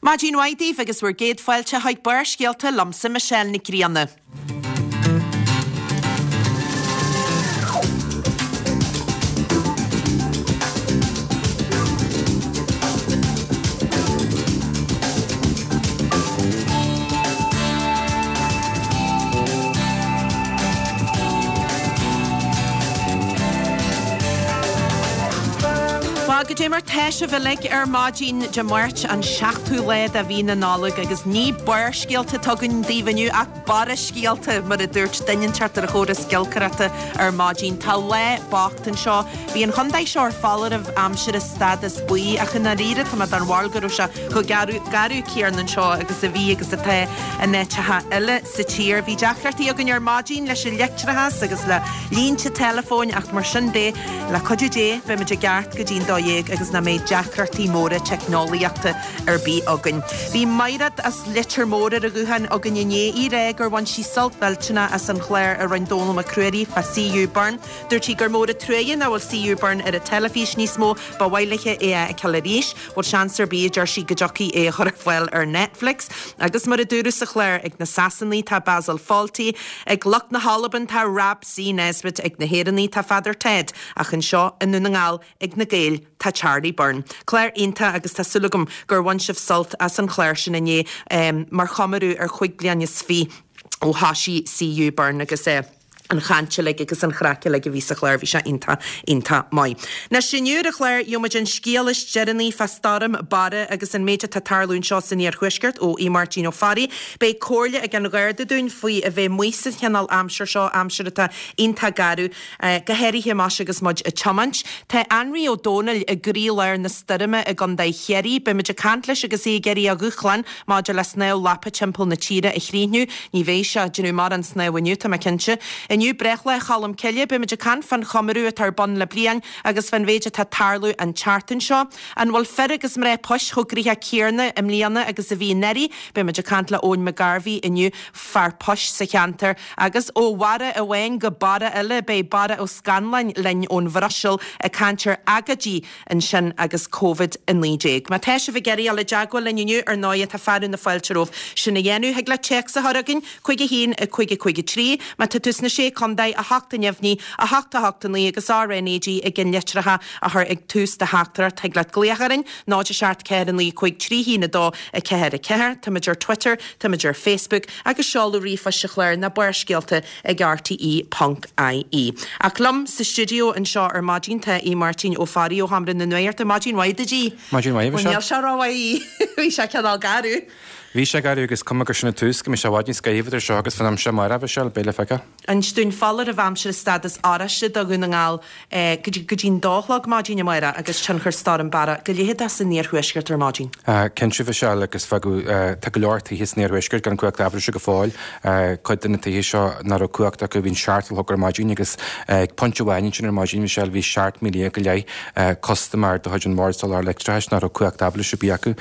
Maidin mhaith daoibh agus bhur gcéad fáilte chuig Barrscéalta liomsa Michelle Nic Grianna. Bhuel, goidé mar tá sibh uilig ar maidin Dé Máirt, an seachtú lá de mhí na Nollag, agus ní barrscéalta atá againn daoibh inniu ach barra scéalta, mar a dúirt duine inteacht ar an chóras giolcaireachta ar maidin. Tá lá bocht anseo. Bhí an chontae seo ar foláireamh aimsire stádas buí, ach i ndáiríre tá mé den bharúil go raibh sé chomh garbh céanna anseo agus a bhí agus atá in áiteacha eile sa tír. Bhí deacrachtaí againn ar maidin leis an leictreachas agus le línte teileafóin ach mar sin de, le cuidiú Dé, beimid i gceart go dtí'n 12 agus nach mbeidh deacrachtaí móra teicneolaíochta ar bith againn. Bhí Maighread as Leitir Móir ar an ghuthán againn inné í ag rá gur bhain sí sult mhillteanach as an chlár a rinne Dónall Mac Ruairí fá C.U. Byrne. Dúirt sí gur mór an truaighe nach bhfuil C.U. Byrne ar an teilifís níos mó, ba mhaith léithe é a fheiceáil arís. Bhfuil seans ar bith, a deir sí, go dtiocfaí é a chur ar fáil ar Netflix? Agus mar a dúradh sa chlár, ag na Sasanaigh tá Basil Fawlty, ag lucht na hAlban tá Rab C. Nesbitt, ag na hÉireannaigh tá Father Ted, ach anseo i nDún na nGall, ag na Gaeil tá Charlie Byrne. Clár iontach agus tá súil agam gur bhain sibh sult as an chlár sin inné mar chomóradh ar chúig bliana is fiche ó thoisigh C.U. Byrne agus é. an chaint uilig agus an chraic uilig a bhí sa chlár, bhí sé iontach, iontach maith. Anois, inniu ar an chlár, gheobhaimid an scéal is deireanaí fá stoirm Barra agus an méid atá ag tarlú anseo san iarthuaisceart ó Aodh Máirtín Ó Fearraigh. Beidh comhairle ag an Gharda dúinn faoi a bheith amuigh sa chineál aimsir seo, aimsir atá iontach garbh, go háirithe más agus muid ag tiomáint. Tá Anraí Ó Domhnaill i gcroílár na stoirme i gContae Chiarraí. Beimid ag caint leis agus é ag iarraidh a dhúshlán Maidir le snámh lapa timpeall na tíre a chríochnú, ní bheidh sé ag déanamh mórán snámh inniu, tá mé cinnte. Inniu, breithlá Cholm Cille, beimid ag caint fán chomóradh atá ar bun le bliain agus fán mhéid atá ag tarlú an tseachtain seo. An bhfuil fir agus mná poist chomh gnoitheach céanna i mbliana agus a bhí anuraidh? Beimid ag caint le Eoin McGarvey inniu, fear poist sa cheantar. Agus ó bharra amháin go barra eile, beidh Barra Ó Scanláin linn ón Bhruiséil ag caint ar agóidí ansin agus Covid-19. Má tá sibh ag iarraidh dul i dteagmháil linn inniu, ar ndóighe, tá fearadh na fáilte romhaibh sin a dhéanamh. Thig leat téacs a chur chugainn, 5 1 5 5 3. Má tá tú sna Sé Contae, 8 neamhní, 8 8 9 agus RnaG i gceannlitreacha a chur ag tús do theachtaireacht. Thig leat glaoch orainn, 0 7 4 9 5 3 1 2 4 4. Táimid ar Twitter, táimid ar Facebook agus seoladh ríomhphoist an chláir ná Barrscéalta ag rte ponc ie. Ach liom sa stiúideo anseo ar maidin tá Aodh Máirtín Ó Fearraigh ó Sheomra na Nuachta. Maidin mhaith duit, Aodh. Maidin mhaith, a Bhuel, Mhichelle. níl sé rómhaith, bhí sé cineál garbh. Bhí sé garbh agus cuma gur sin an tús, go mbeidh sé i bhfad níos gaibhe idir seo agus fán am seo amárach, a Mhichelle, beidh le feiceáil. Inis dúinn foláireamh aimsire stádas oráiste do Dhún na nGall go dtí go dtí'n dó a chlog maidin amárach agus tionchar Stoirm Barra go leitheadach san iarthuaisceart ar maidin. Cinnte, a Mhichelle, agus fágadh, tá go leor tithe san iarthuaisceart gan cumhacht aibhléise go fóill. Cuid de na tithe seo nach raibh cumhacht acu bhí an seacht a chlog ar maidin agus ag pointe amháin ansin ar maidin, Michelle, bhí 17,000 go leith custaiméir de chuid an Bhord Soláthair Leictreachais nach raibh cumhacht aibhléise ar bith acu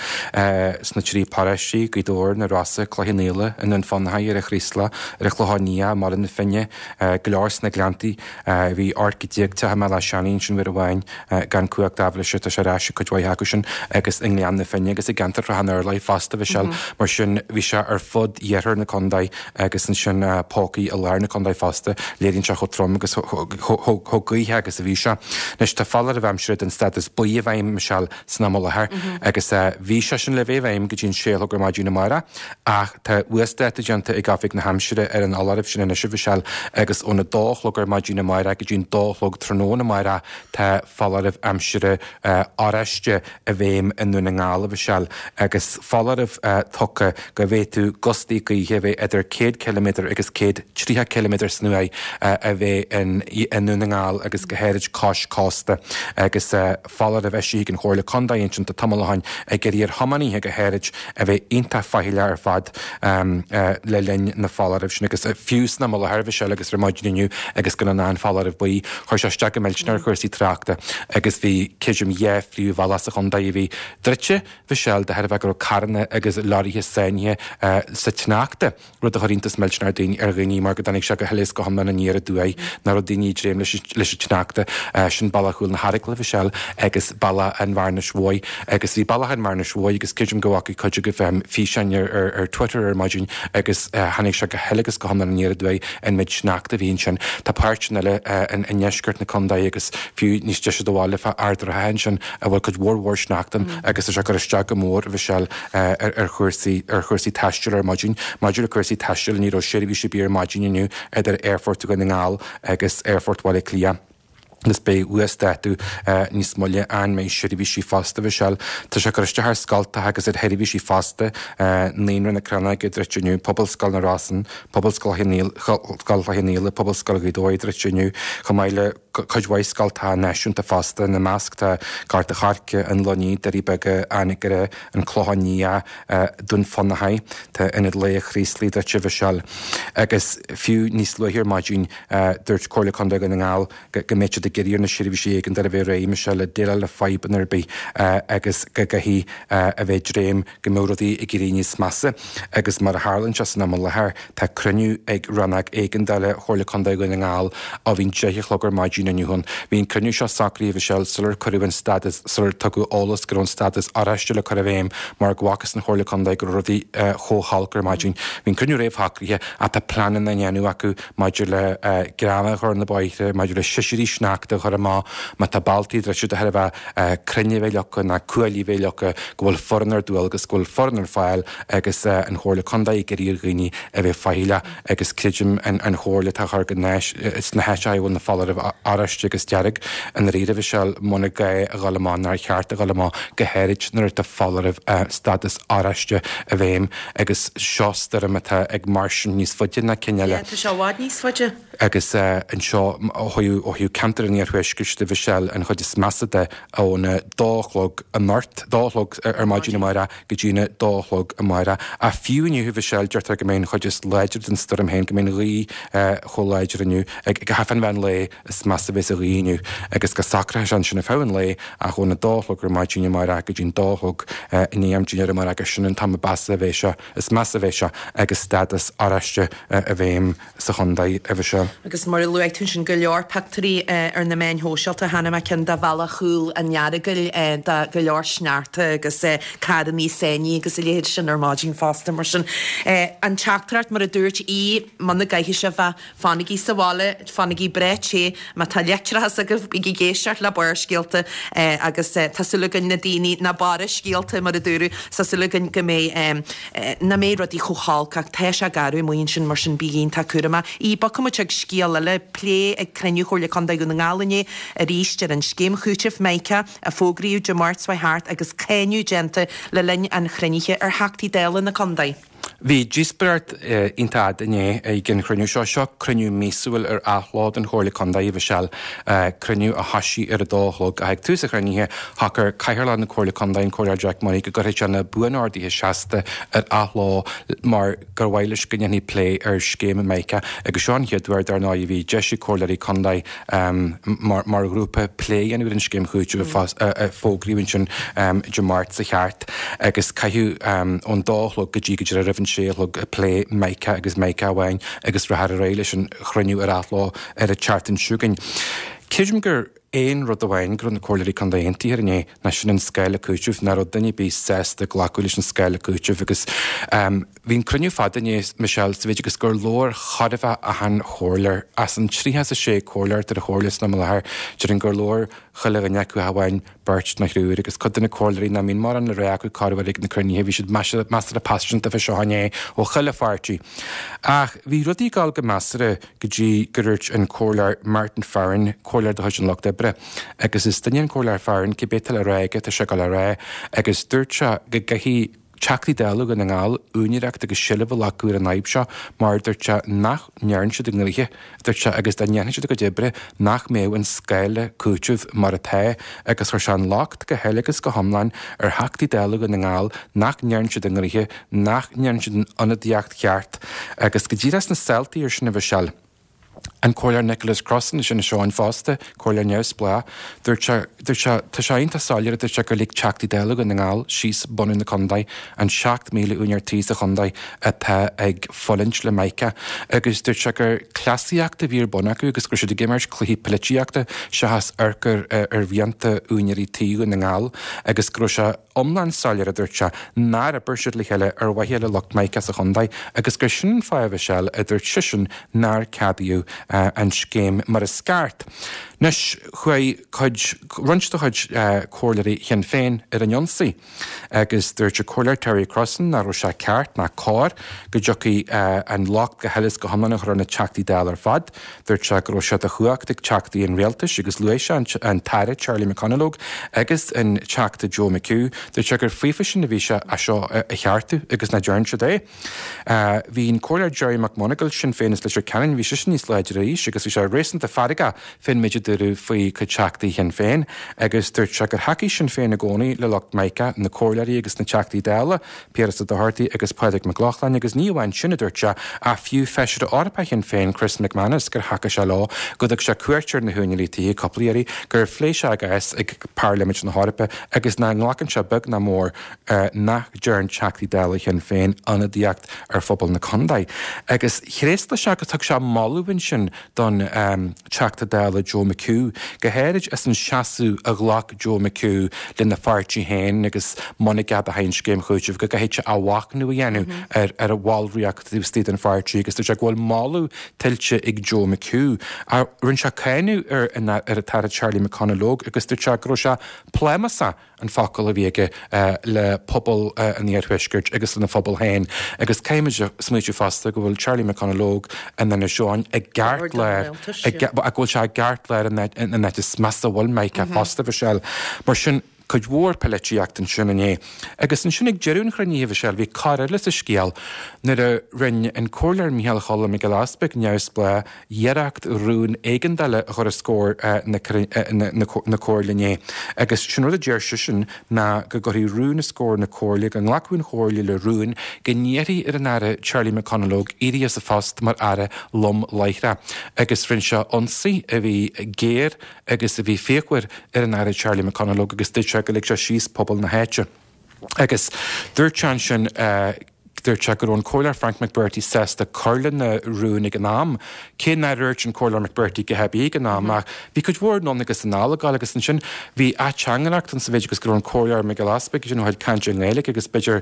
sna trí paróistí, Gaoth Dobhair, na Rosa, Cloich Cheann Fhaola, i nDún Fionnachaidh, ar an Chraoslach, ar an Chlochán Liath, i mBaile na Finne, go leor sna Gleanntaí. Bhí 18 go teach i mBéal Átha Seanaidh ansin uair amháin gan cumhacht aibhléise, tá sé ar ais ag cuid mhaith acu sin agus i nGleann na Finne agus i gceantar Shrath an Urláir fosta, Mhichelle. Mar sin bhí sé ar fud iarthar na contae agus ansin pócaí i lár na contae fosta. Léiríonn sé chomh trom agus chomh gaothach agus a bhí sé. Anois tá foláireamh aimsire den stádas buí i bhfeidhm, Michelle, san am i láthair agus bhí sé sin le bheith i bhfeidhm go dtí an sé a chlog ar maidin amárach ach tá uasdátú déanta ag Oifig na hAimsire ar an fholáireamh sin anois, a Mhichelle, agus óna dó a chlog ar maidin amárach go dtí an dó a chlog tráthnóna amárach tá foláireamh aimsire oráiste i bhfeidhm i nDún na nGall, a Mhichelle, agus foláireamh tugtha go bhféadfadh gustaí gaoithe a bheith idir 100 ciliméadar agus 130 ciliméadar san uair a bheith i nDún na nGall agus go háirid cois cósta agus foláireamh eisithe ag an Chomhairle Contae ansin tá tamall ó shin ag iarraidh ar thiománaithe go háirid a bheith iontach. iontach faichilleach ar fad le linn na foláirimh sin agus fiú san am i láthair a Mhichelle agus ar maidin inniu agus gan an foláireamh buí, chuir sé isteach go millteanach ar chúrsaí tráchta agus bhí creidim dhá phríomhbhealach sa chontae a bhí druidte, Mhichelle, de thairbhe go raibh carranna agus leoraithe sáinnithe sa tsneachta. rud a chuir iontas millteanach ar dhaoine mar go dtáinig sé go huile is go hiomlán aniar aduaidh, nach raibh daoine ag dréim leis an tsneachta. Sin Bealach Chúil na hAragla, Mhichelle, agus Bealach an Bhearnais Mhóir. Agus bhí Bealach an Bhearnais Mhóir agus creidim go bhfaca cuid agaibh físeáin ar Twitter ar maidin agus tháinig sé go huile agus go hiomlán aniar aduaidh an méid sneachta a bhí ansin. Tá páirteanna eile i ndeisceart na contae agus fiú níos deise do bhaile fá Ard an Rátha ansin a bhfuil cuid mhór mhór sneachta ann agus tá sé ag cur isteach go mór, a Mhichelle, ar chúrsaí ar chúrsaí taistil ar maidin. Maidir le cúrsaí taistil, ní raibh seirbhís ar bith ar maidin inniu idir Aerfort Dhún na nGall agus Aerfort Bhaile Átha Cliath agus beidh uasdátú níos moille an mbeidh seirbhísí fosta, Mhichelle. Tá sé ag cur isteach ar scoltacha agus ar sheirbhísí fosta, Naíonra na Crannóige druidte inniu, Pobalscoil na Rosann, Pobalscoil Chloich Cheann Fhaola, Pobalscoil Ghaoth Dobhair druidte inniu, chomh maith le cuid mhaith scoltacha náisiúnta fosta, ina measc tá Gort a' Choirce, an Luinnigh, Doirí Beaga, Anagaire, An Clochán Liath, Dún Fionnachaidh, tá Ionad Lae Chraoslaigh druidte, a Mhichelle. Agus fiú níos luaithe ar maidin, dúirt Comhairle Contae Dhún na nGall go mbeadh siad ag iarraidh ar na seirbhísí éigeandála a bheith réidh, Michelle, le déileáil le fadhbanna ar bith agus go gcaithfidh a bheith ag dréim go mbeadh rudaí ag éirí níos measa. Agus mar a tharlaíonn sé san am i láthair, tá cruinniú ag Rannóg Éigeandála Chomhairle Contae Dhún na nGall ó bhí an 10 a chlog ar maidin inniu ann. Bhí an cruinniú seo socraithe, Mhichelle, sular cuireadh an stádas, sular tugadh eolas go raibh an stádas oráiste le cur i bhfeidhm mar go bhfacthas don Chomhairle Contae go raibh rudaí chomh holc ar maidin. Bhí an cruinniú réamhshocraithe ach tá pleananna á ndéanamh acu maidir le greamaigh a chur ar na bóithre, maidir le sisirí sneachta a chur amach, má tá bealtaí druidte de thairbhe crainn a bheith leagtha ná cuaillí a bheith leagtha, go bhfuil foireann ar dualgas, go bhfuil foireann ar fáil agus an Chomhairle Contae ag iarraidh ar dhaoine a bheith faichilleach agus creidim an chomhairle atá á chur go sna háiteacha a bhfuil na foláirimh oráiste agus dearg i ndáiríre Mhichelle, muna gá a dhul amach nár cheart a dhul amach, go háirid nuair atá foláireamh stádas oráiste i bhfeidhm agus seo stoirm atá ag mairstean níos faide ná cinn eile. Yeah, tá sé i bhfad níos faide. Agus anseo ó thaobh ceantar an iarthuaiscirt de Mhichelle, an chuid is measa de, óna dó a chlog anocht, dó a chlog ar maidin amárach go dtína dó a chlog amárach. Ach fiú inniu, a Mhichelle, deirtear go mbeidh an chuid is láidre den stoirm féin, go mbeidh an ghaoth chomh láidir inniu, ag fán mheán lae, is measa a bheas an ghaoth inniu agus go socróidh sé ansin ar feadh an lae ach óna dó a chlog ar maidin amárach go dtí'n dó a chlog i ndiaidh am dinnéir amárach gur sin an t-am a mheasa a bheidh sé, is measa a bheidh sé agus stádas oráiste i bhfeidhm. sa chontae, a Mhichelle. Agus mar a luaigh tú ansin, go leor pictiúirí ar na meáin shóisialta, chonaic mé ceann de bhealach Chúil an Earagail de go leor sneachta agus carrannaí sáinnithe agus a leithéid sin ar maidin fosta. Mar sin, an teachtaireacht, mar a dúirt Aodh, muna gcaithfidh sé bheith, fanaigí sa bhaile, fanaigí breá te, má tá leictreachas agaibh, bígí ag éisteacht le Barrscéalta agus tá súil againn na daoine, na barra-scéalta mar a dúradh, tá súil againn go mbeidh. nach mbeidh rudaí chomh holc ach tá sé garbh amuigh ansin mar sin bígí iontach cúramach. Aodh, bogfaidh muid chuig scéal eile, plé ag cruinniú Chomhairle Contae Dhún na nGall inné arís ar an scéim chúitimh Mica a fógraíodh Dé Máirt seo thart agus cáineadh déanta le linn an chruinnithe ar Theachtaí Dála na contae. Bhí díospóireacht iontach fhada inné ag an chruinniú seo. Seo cruinniú míosúil ar athló den Chomhairle Contae, a Mhichelle, cruinniú a thoisigh ar a dó a chlog. Ach ag tús an chruinnithe, shocair Cathaoirleach na Comhairle Contae, an Comhairleoir Jack Murray, go gcuirfeadh sé na buanorduithe seasta ar athló mar gur mhaith leis go ndéanfaí plé ar scéim Mica agus seo an chéad uair, dar ndóigh, a bhí deis ag comhairleoirí contae mar ghrúpa plé a dhéanamh ar an scéim chúitimh a fógraíodh ansin Dé Máirt seo thart agus caitheadh ón dó a chlog go dtí go díreach roimh an sé a chlog ag plé Mica agus Mica amháin agus rachfar ar aghaidh leis an chruinniú ar athló ar an tseachtain seo chugainn. Creidim gur aon rud amháin go raibh na comhairleoirí contae aontaithe air inné ná sin an scála cúitimh, nach raibh duine ar bith sásta glacadh leis an scála cúitimh agus bhí an cruinniú fada inné, Michelle, sa mhéid agus gur labhair chóir a bheith achan chomhairleoir. As an 36 comhairleoir atá ar an chomhairle san am i láthair, déarfainn gur labhair chuile dhuine acu ach amháin beirt nó thriúr agus cuid de na comhairleoirí nach mbíonn mórán le rá acu corruair ag na cruinnithe, bhí siad measartha paiseanta fé seo inné ó chuile pháirtí. Ach bhí rudaí ag dul go measartha go dtí gur dhúirt an Comhairleoir Martin Farren, Comhairleoir de chuid an Lucht Oibre, agus is duine é an Comhairleoir Farren, cibé atá le rá aige, tá sé ag dul á rá, agus dúirt sé go gcaithfidh. Teachtaí Dála Dhún na nGall úinéireacht agus seilbh a ghlacadh ar an fhadhb seo mar, dúirt sé, nach ndearna siad a ngnoithe, dúirt sé, agus dá ndéanfadh siad a gcuid oibre nach mbeadh an scála cúitimh mar atá agus chuir sé an locht go huile agus go hiomlán ar Theachtaí Dála Dhún na nGall nach ndearna siad a ngnoithe, nach ndearna siad an ionadaíocht cheart agus go díreach sna saoltaí ar sin a Mhichelle. An Comhairleoir Nicholas Crossan as Inis Eoghain fosta, Comhairleoir neamhspleách, dúirt sé, dúirt sé, tá sé iontach soiléir, a dúirt sé, gur lig Teachtaí Dála Dhún na nGall síos bunadh na contae, an 7,000 úinéir tí sa chontae atá ag fulaingt le Mica agus dúirt sé gur cleasaíocht a bhí ar bun acu agus go raibh siad ag imirt cluichí poilitíochta seachas amharc ar ar mhianta úinéirí tí Dhún na nGall agus go raibh sé iomlán soiléir, a dúirt sé, nár oibir siad le chéile ar mhaithe le lucht Mica sa chontae agus gur sin an fáth, a Mhichelle, a dúirt seisean, nár ceadaíodh an scéim mar is ceart. Anois, chuaigh cuid, roinnt de chuid comhairleoirí Shinn Féin ar an ionsaí agus dúirt an Comhairleoir Terry Crossan nach raibh sé ceart ná cóir go dtiocfaidh an locht go huile is go hiomlán a chur ar na Teachtaí Dála ar fad. Dúirt sé go raibh sé de chumhacht ag Teachtaí an Rialtais agus luaigh sé an tAire Charlie McConalogue agus an Teachta Joe McHugh. Dúirt sé gur faofa sin a bhí sé é seo a cheartú agus nach dtearn siad é. Bhí an Comhairleoir Gerry McMonagle, Sinn Féin as Leitir Ceanainn, bhí seisean níos láidre arís agus bhí sé réasúnta feargach fén méid a dúradh faoi chuid Teachtaí Shinn Féin agus dúirt sé gur thacaigh Sinn Féin i gcónaí le lucht Mica, na Comhairleoirí agus na Teachtaí Dála. Piaras Ó Dochartaigh agus Pádraig Mac Lochlainn agus ní amháin sin, a dúirt sé, ach fiú Feisire Eorpach Shinn Féin, Chris McManus, gur thacaigh sé leo, go dtug sé cuairt ar na húinéirí tithe cúpla iarraidh, gur phléigh sé a gcás ag Pairlimint na hEorpa agus nach nglacann sé beag ná mór nach dtearn Teachtaí Dála Shinn Féin ionadaíocht ar phobal na contae. Agus thréaslaigh sé agus thug sé moladh ansin don Teachta Dála Joe McHugh, go háirid as an seasamh a ghlac Joe McHugh lena pháirtí féin agus muna gceadófaí an scéim chúitimh go gcaithfidh sé athmhachnamh a dhéanamh ar ar a bhallraíocht taobh istigh den pháirtí agus dúirt sé go bhfuil moladh tuillte ag Joe McHugh. Ach rinne sé cáineadh ar an ar an tAire Charlie McConalogue agus dúirt sé go raibh sé plámásach an focal a bhí aige le pobal an iarthuaiscirt agus lena phobal féin agus caithfimid a smaoitiú fosta go bhfuil Charlie McConalogue in Inis Eoghain i gceartlár go bhfuil sé i gceartlár an áit is measa a bhfuil Mica fosta, Mhichelle. Mar sin, cuid mhór poilitíocht ansin inné. Agus ansin ag deireadh an chruinnithe, Mhichelle, bhí cor eile sa scéal nuair a rinne an Comhairleoir Micheál Choilm Mac Giolla Easpaig, neamhspleách, iarracht rún éigeandála a chur os comhair na Comhairle inné agus sin rud a deir seisean ná go gcuirfí rún os comhair na Comhairle, go nglacfadh an Chomhairle le rún go n-iarrfaí ar an Aire Charlie McConalogue éirí as a phost mar Aire lom láithreach agus rinne sé ionsaí a bhí géar agus a bhí fíochmhar ar an Aire Charlie McConalogue agus dúirt sé gur lig sé síos pobal na háite. Agus dúirt sé ansin, dúirt sé go raibh an Comhairleoir Frank McBrearty sásta cur lena rún ag an am, cé nár dhúirt an Comhairleoir McBrearty a dhath ar bith ag an am, ach bhí cuid mhór anonn agus anall ag gabháil agus ansin bhí ateangaireacht ann sa mhéid agus go raibh an Comhairleoir Mac Giolla Easpaig ansin ó thaobh cainte i nGaeilge agus b'fhéidir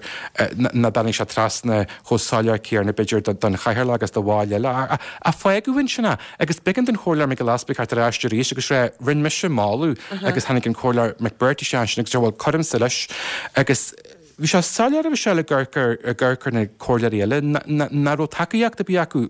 nach dtáinig sé trasna chomh soiléir céanna b'fhéidir don chathaoirleach agus do bhaill eile ach fágadh ansin é. Agus b'éigean don Chomhairleoir Mac Giolla Easpaig theacht ar ais arís agus rá, rinne mise moladh agus tháinig an Comhairleoir McBrearty isteach ansin agus deir, bhuel, cuirimse leis. Agus bhí sé soiléir, a Mhichelle, ag amharc ar, ag amharc ar na comhairleoirí eile, nach raibh tacaíocht ar bith acu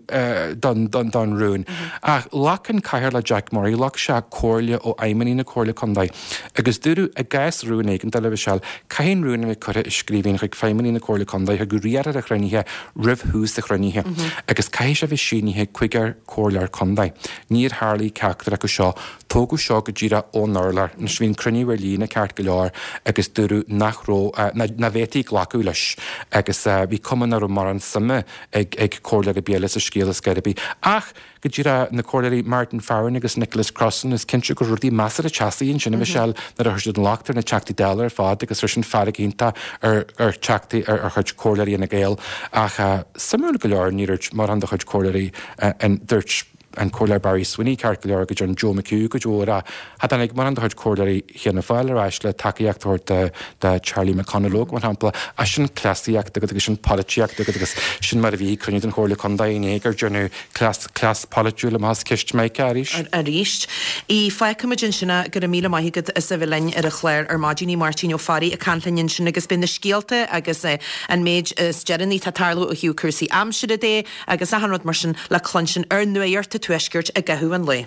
don, don, don rún. Ach ghlac an Cathaoirleach Jack Murray, ghlac sé comhairle ó fheidhmeannaigh na Comhairle Contae agus dúradh i gcás rún éigeandála, a Mhichelle, caithfidh an rún a bheith curtha i scríbhinn chuig feidhmeannaigh na Comhairle Contae, chuig riarthóir an chruinnithe roimh thús an chruinnithe agus caithfidh sé a bheith sínithe ag cúigear comhairleoir contae. Níor tharlaigh ceachtar acu seo. Tógadh seo go díreach ón urlár. Anois bhí an cruinniú ar líne ceart go leor agus dúradh nach raibh, nach bhféadfaí glacadh leis agus bhí cuma nach raibh mórán suime ag ag comhairleoir ar bith eile sa scéal ar scor ar bith. Ach go díreach na comhairleoirí Martin Farren agus Nicholas Crossan, is cinnte go raibh rudaí measartha teasaí ansin, a Mhichelle, nuair a chuir siad an locht ar na Teachtaí Dála ar fad agus chuir sin fearg iontach ar ar Theachtaí ar ar chuid comhairleoirí Fhine Gael. Ach suimiúil go leor níor dhúirt mórán de chuid comhairleoirí an dúirt an Comhairleoir Barry Sweeney ceart go leor go dtearn Joe McHugh cuid mhór ach cha dtáinig mórán de chuid comhairleoirí Fhianna Fáil ar ais le tacaíocht a thabhairt do do Charlie McConalogue mar shampla. Ach sin cleasaíocht agat agus sin polaitíocht agat agus sin mar a bhí ag cruinniú den Chomhairle Contae inné gur deineadh cleas cleas polaitiúil amach as ceist Mica arís. Arís. Í, Fágfaimid ansin é, go raibh míle maith agat as a bheith linn ar an chlár ar maidin a Mháirtín Ó Fearraigh ag caint linn ansin agus beidh na scéalta agus an méid is deireanaí atá ag tarlú ó thaobh cúrsaí aimsire de agus achan rud mar sin le cluinstin ar Nuacht an Tuaiscirt i gcaitheamh an lae.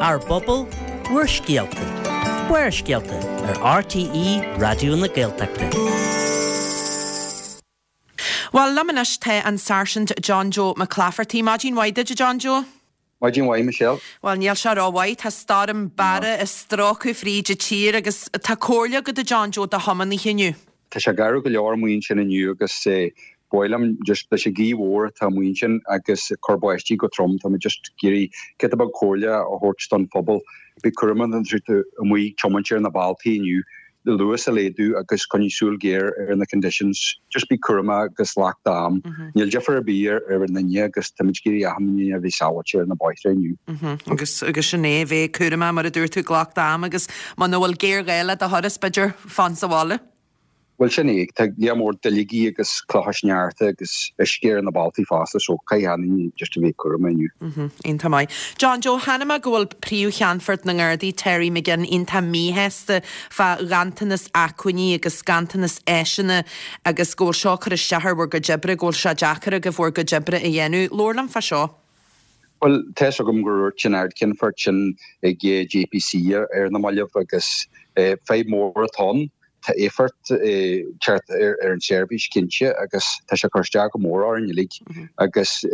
Ár bpobal, bhur scéalta. Barrscéalta ar RTÉ Raidió na Gaeltachta. Bhuel, liom anois tá an Sáirsint John Joe McClafferty. Maidin mhaith duit, a John Joe. Maidin mhaith, Michelle. Bhuel, níl sé rómhaith. Tá stoirm Barra ag stróiceadh fríd an tír agus tá comhairle agat, a John Joe, do thiománaithe inniu. Tá sé garbh go leor amuigh ansin inniu agus ba mhaith liom just leis an ghaoth mhór atá amuigh ansin agus ag cur báistí go trom, tá mé just ag iarraidh giota beag comhairle a thabhairt don phobal. Bí cúramach nuair atá tú amuigh ag tiomáint ar na bealtaí inniu. Luas a laghdú agus coinnigh súil ghéar ar na conditions. Just bí cúramach agus glac d'am. Níl difear ar bith ar an duine agus táimid ag iarraidh achan duine a bheith sábháilte ar na bóithre inniu. Agus agus sin é, bheith cúramach mar a dúirt tú, glac d'am agus muna bhfuil géarghá le do thuras, b'fhéidir fan sa bhaile. Bhuel sin é, tá lear mór duilleogaí agus clocha sneachta agus uisce ar na bealtaí fosta so caithfidh achan duine just a bheith cúramach inniu. Iontach maith. John Joe, chonaic mé go bhfuil Príomh-Cheannfort na nGardaí, Terry McGinn, iontach míshásta fá ghanntanas acmhainní agus ganntanas áiseanna agus go bhfuil seo ag cur isteach ar bhur gcuid oibre, go bhfuil sé deacair agaibh bhur gcuid oibre a dhéanamh. Labhair liom fá seo. Bhuel, tá 'fhios agam gur dhúirt an Ard-Cheannfort sin ag JPC ar na mallaibh agus fadhb mhór atá ann. Tá éifeacht ag teacht ar an tseirbhís cinnte agus tá sé ag cur isteach go mór orainn uilig agus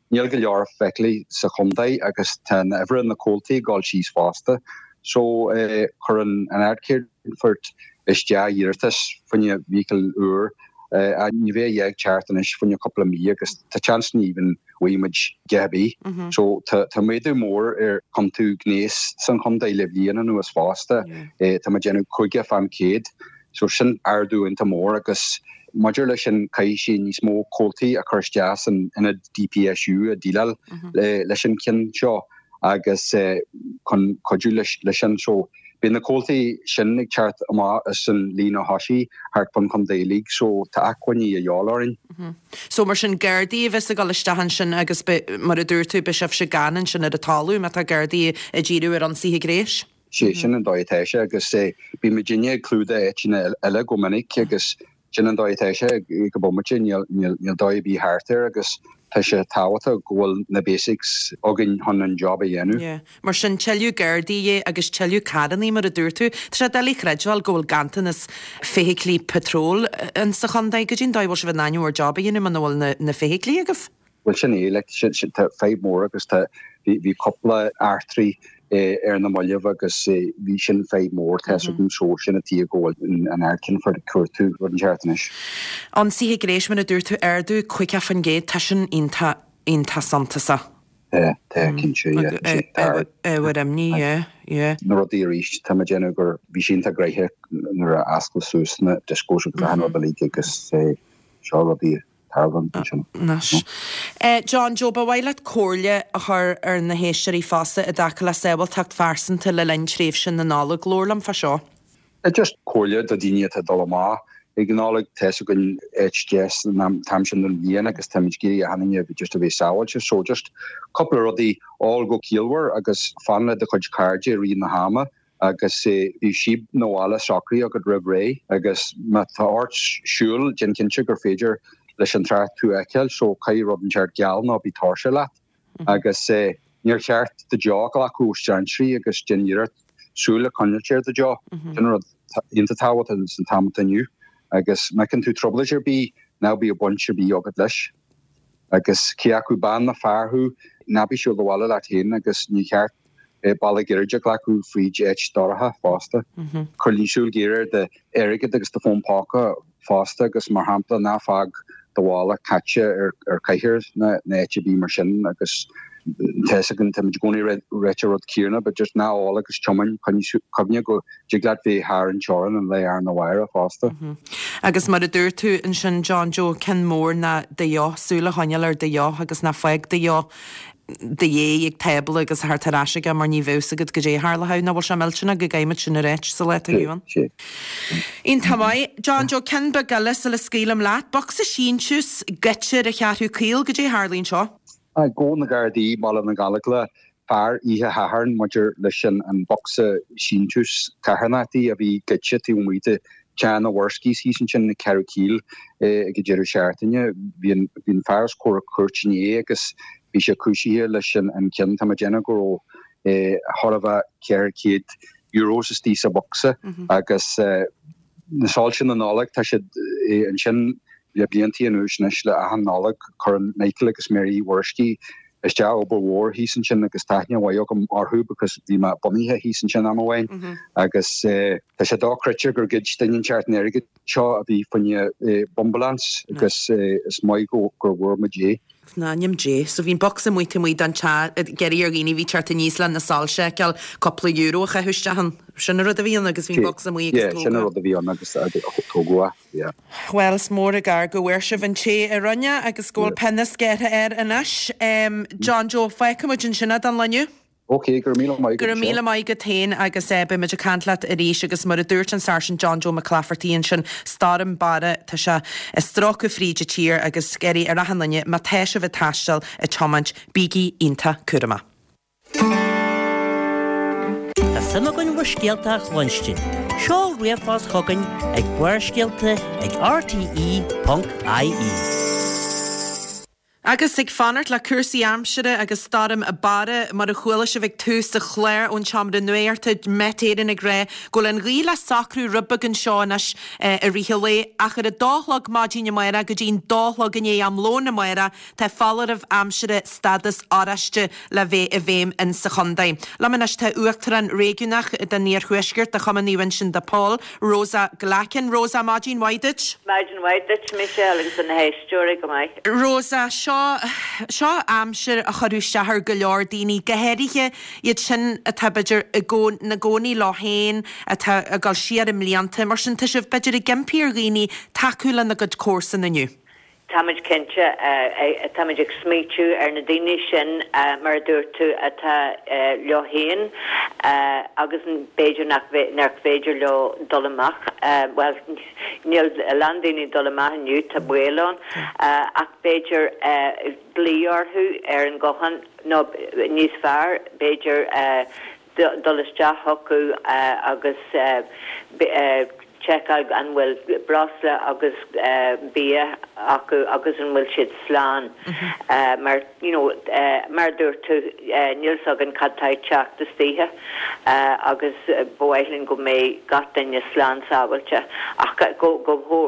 níl go leor feithiclí sa chontae agus tá an uimhir na comhaltaí ag dul síos fosta. So chuir an Ard-Cheannfort isteach iarratas fá choinne vehicle úr ach ní bheidh a dhath ag teacht anois fá choinne cúpla mí agus tá chance ní even bhfaighidh muid a dhath ar bith. So tá méadú mór ar chiontú gnéis san chontae le bliain anuas fosta. Tá muid déanamh 50%. So sin ardú iontach mór agus maidir leis sin caithfidh sé níos mó comhaltaí a chur isteach san ionad DPSU a déileáil leis an cionn seo agus chun cuidiú leis sin. So beidh na comhaltaí sin ag teacht amach as an líne thosaigh thart fán chontae uilig so tá acmhainní a dhíobháil orainn. So mar sin Gardaí a bheas ag dul isteach ansin agus beidh, mar a dúirt tú, beidh sibhse gann ansin ar an talamh má tá Gardaí ag díriú ar ionsaithe gnéis. Sé sin an dóigh atá sé agus bíonn muidinne ag clúdach áiteanna eile go minic agus Sin an dóigh atá sé ag an bomaite, níl dóigh ar bith thart air agus tá sé tábhachtach go bhfuil na basics againn chun an job a dhéanamh. Yeah. Mar sin, tuilleadh Gardaí agus tuilleadh carrannaí mar a dúirt tú. Tá sé doiligh a chreidbheáil go bhfuil ganntanas feithiclí patróil in sa chontae. Goidé an dóigh a bhfuil sibh in ainm bhur job a dhéanamh muna bhfuil na feithiclí agaibh? Bhuel sin é, like, tá fadhb mór agus tá, bhí, bhí cúpla eachtraí ar na mallaibh agus bhí sin fadhb mór, tá 'fhios agam so sin an tuige go bhfuil an Ard-Cheannfort ag cuartú rud inteacht anois. Ionsaithe gnéis, mar a dúirt tú, ardú 50%, tá sin iontach, iontach suntasach. Tá, tá, cinnte, yeah, tá. Ábhar imní, yeah, yeah. Na rudaí arís, tá mé ag déanamh gur, bhí sé iontach gnoitheach nuair a osclaíodh suas na discos agus achan rud uilig agus seo rudaí tarlaíonn ansin. Anois. John Joe, ba mhaith leat comhairle a chur ar na héisteoirí fosta i dtaca le sábháilteacht phearsanta le linn tréimhse na Nollag. Labhair liom fá seo. Just comhairle do dhaoine atá ag dul amach ag an Nollaig. Tá 'fhios againn áit deas an t-am sin den bhliain agus táimid ag iarraidh achan duine just a bheith sábháilte. So just cúpla rudaí, ól go ciallmhar agus fan le do chuid cairde i rith na hama. agus bíodh síob 'na bhaile socraithe agat roimh ré agus má tá ort siúl déan cinnte gur féidir leis an trácht tú a fheiceáil so caith rud inteacht geal ná bí tuirseach leat agus níor cheart do deoch a ghlacadh ó strainséirí agus déan iarracht súil a choinneáilt ar do deoch. Sin rud iontach tábhachtach san t-am atá inniu agus má fheiceann tú trioblóid ar bith ná bíodh baint ar bith agat leis. Agus cé acu bean nó fear thú ná bí ag siúl abhaile leat féin agus ní cheart bealach gairid a ghlacadh fríd áit dorcha fosta. Coinnigh súil ghéar ar d'airgead agus do fón póca fosta agus mar shampla ná fág do mhála caite ar chathaoir ná áit ar bith mar sin agus tá 'fhios againn táimid i gcónaí ag ráit an rud céanna but just ná ól agus tiomáin coinnigh cuimhne go dtig leat bheith thar an teorainn an lá arna mhárach fosta. Agus mar a dúirt tú ansin John Joe, ceann mór ná do dheoch, súil a choinneáil ar do dheoch agus ná fág do dheoch do dhéidh ag tábla agus a theacht ar ais aige mar ní bheadh 'fhios agat goidé a tharlódh. Nach bhfuil sé millteanach go gcaithfimid sin a ráit sa lá atá inniu ann. Iontach maith. John Joe, ceann beag eile sula scaoilim leat. Bocsa síntiús goidte ar an Cheathrú Caol, goidé a tharlaíonn anseo? Ghabh na Gardaí i mBaile na Gallóglach fear oíche Shathairn maidir leis an bhocsa síntiús carthanachtaí a bhí goidte taobh amuigh de Teach na Worskies thíos ansin i Ceathrú Caoil ag an deireadh seachtaine. Bhí an fear os comhair cúirt inné agus bhí sé cúisithe leis an cion. Tá mé ag déanamh go raibh chóir a bheith €400 istigh sa bhocsa agus na soilse na Nollag tá siad ansin. Le bliantaí anuas anois le achan Nollaig cuireann Michael agus Mary Mhuiriscí isteach obair mhór thíos ansin agus tá aithne mhaith agam orthu because bhí mé bunaithe thíos ansin am amháin agus tá sé dochreidte gur ghoid duine inteacht an airgead seo a bhí fá choinne bumbulance agus is maith go gur bhfuair muid é. In ainm Dé. So bhí an bocsa amuigh taobh amuigh den teach ag iarraidh ar dhaoine a bhí ag teacht aníos le na soilse a fheiceáil cúpla euro a chaitheamh isteach ann. Sin an rud a bhí ann agus bhí an bocsa amuigh agus Yeah, sin an tógadh. rud a bhí ann agus tógadh é, yeah. Bhuel, is mór an gar go bhfuair sibh an té a rinne agus go bhfuil pionós gearrtha air anois. John Joe, fágfaidh muid ansin é don lá inniu. Ok, go raibh míle maith agat. Go raibh míle maith agat féin agus beidh muid ag caint leat arís agus mar a dúirt an Sáirsint John Joe Mac Laifeartaigh ansin, Stoirm Barra, tá sé ag stróiceadh fríd an tír agus ag iarraidh ar achan duine, má tá sibh ag taisteal, ag tiomáint, bígí iontach cúramach. Tá suim againn bhur scéalta a chluinstin. Seol ríomhphost chugainn ag barrscéalta ag rte.ie. Agus ag fanacht le cúrsaí aimsire agus Stoirm Barra, mar a chuala sibh ag tús an chláir ón tseomra nuachta, Met Éireann ag rá go bhfuil an ghaoth le socrú rud beag anseo anois i rith an lae, ach ar a dó a chlog maidin amárach go dtí'n dó a chlog i ndiaidh am lóin amárach tá foláireamh aimsire stádas oráiste le bheith i bhfeidhm in sa chontae. Liom anois tá Uachtarán Réigiúnach den Iarthuaisceart de Chumann Naomh Uinseann de Pól, Rosa Glackin. Rosa, maidin mhaith duit. Maidin mhaith duit, Michelle, agus do na héisteoirí go maith. Rosa, seo, seo aimsir a chuirfeadh isteach ar go leor daoine, go háirithe iad sin atá, b'fhéidir, i gcó, na gcónaí leo féin, atá ag dul siar i mblianta. Mar sin, tá sibh, b'fhéidir, ag impí ar dhaoine tacú lena gcuid comharsan inniu. Táimid cinnte, táimid ag smaoitiú ar na daoine sin, mar a dúirt tú, atá leo féin agus b'fhéidir nach féidir leo dul amach, bhuel, níl a lán daoine ag dul amach inniu, tá baol ann, ach b'fhéidir glaoch orthu ar an nguthán nó níos fearr, b'fhéidir dul isteach chucu agus seiceáil an bhfuil breosla agus bia acu agus an bhfuil siad slán mar you know mar a dúirt tú níl 's againn cad tá ag teacht istoíche agus ba mhaith linn go mbeidh gach duine slán sábháilte ach go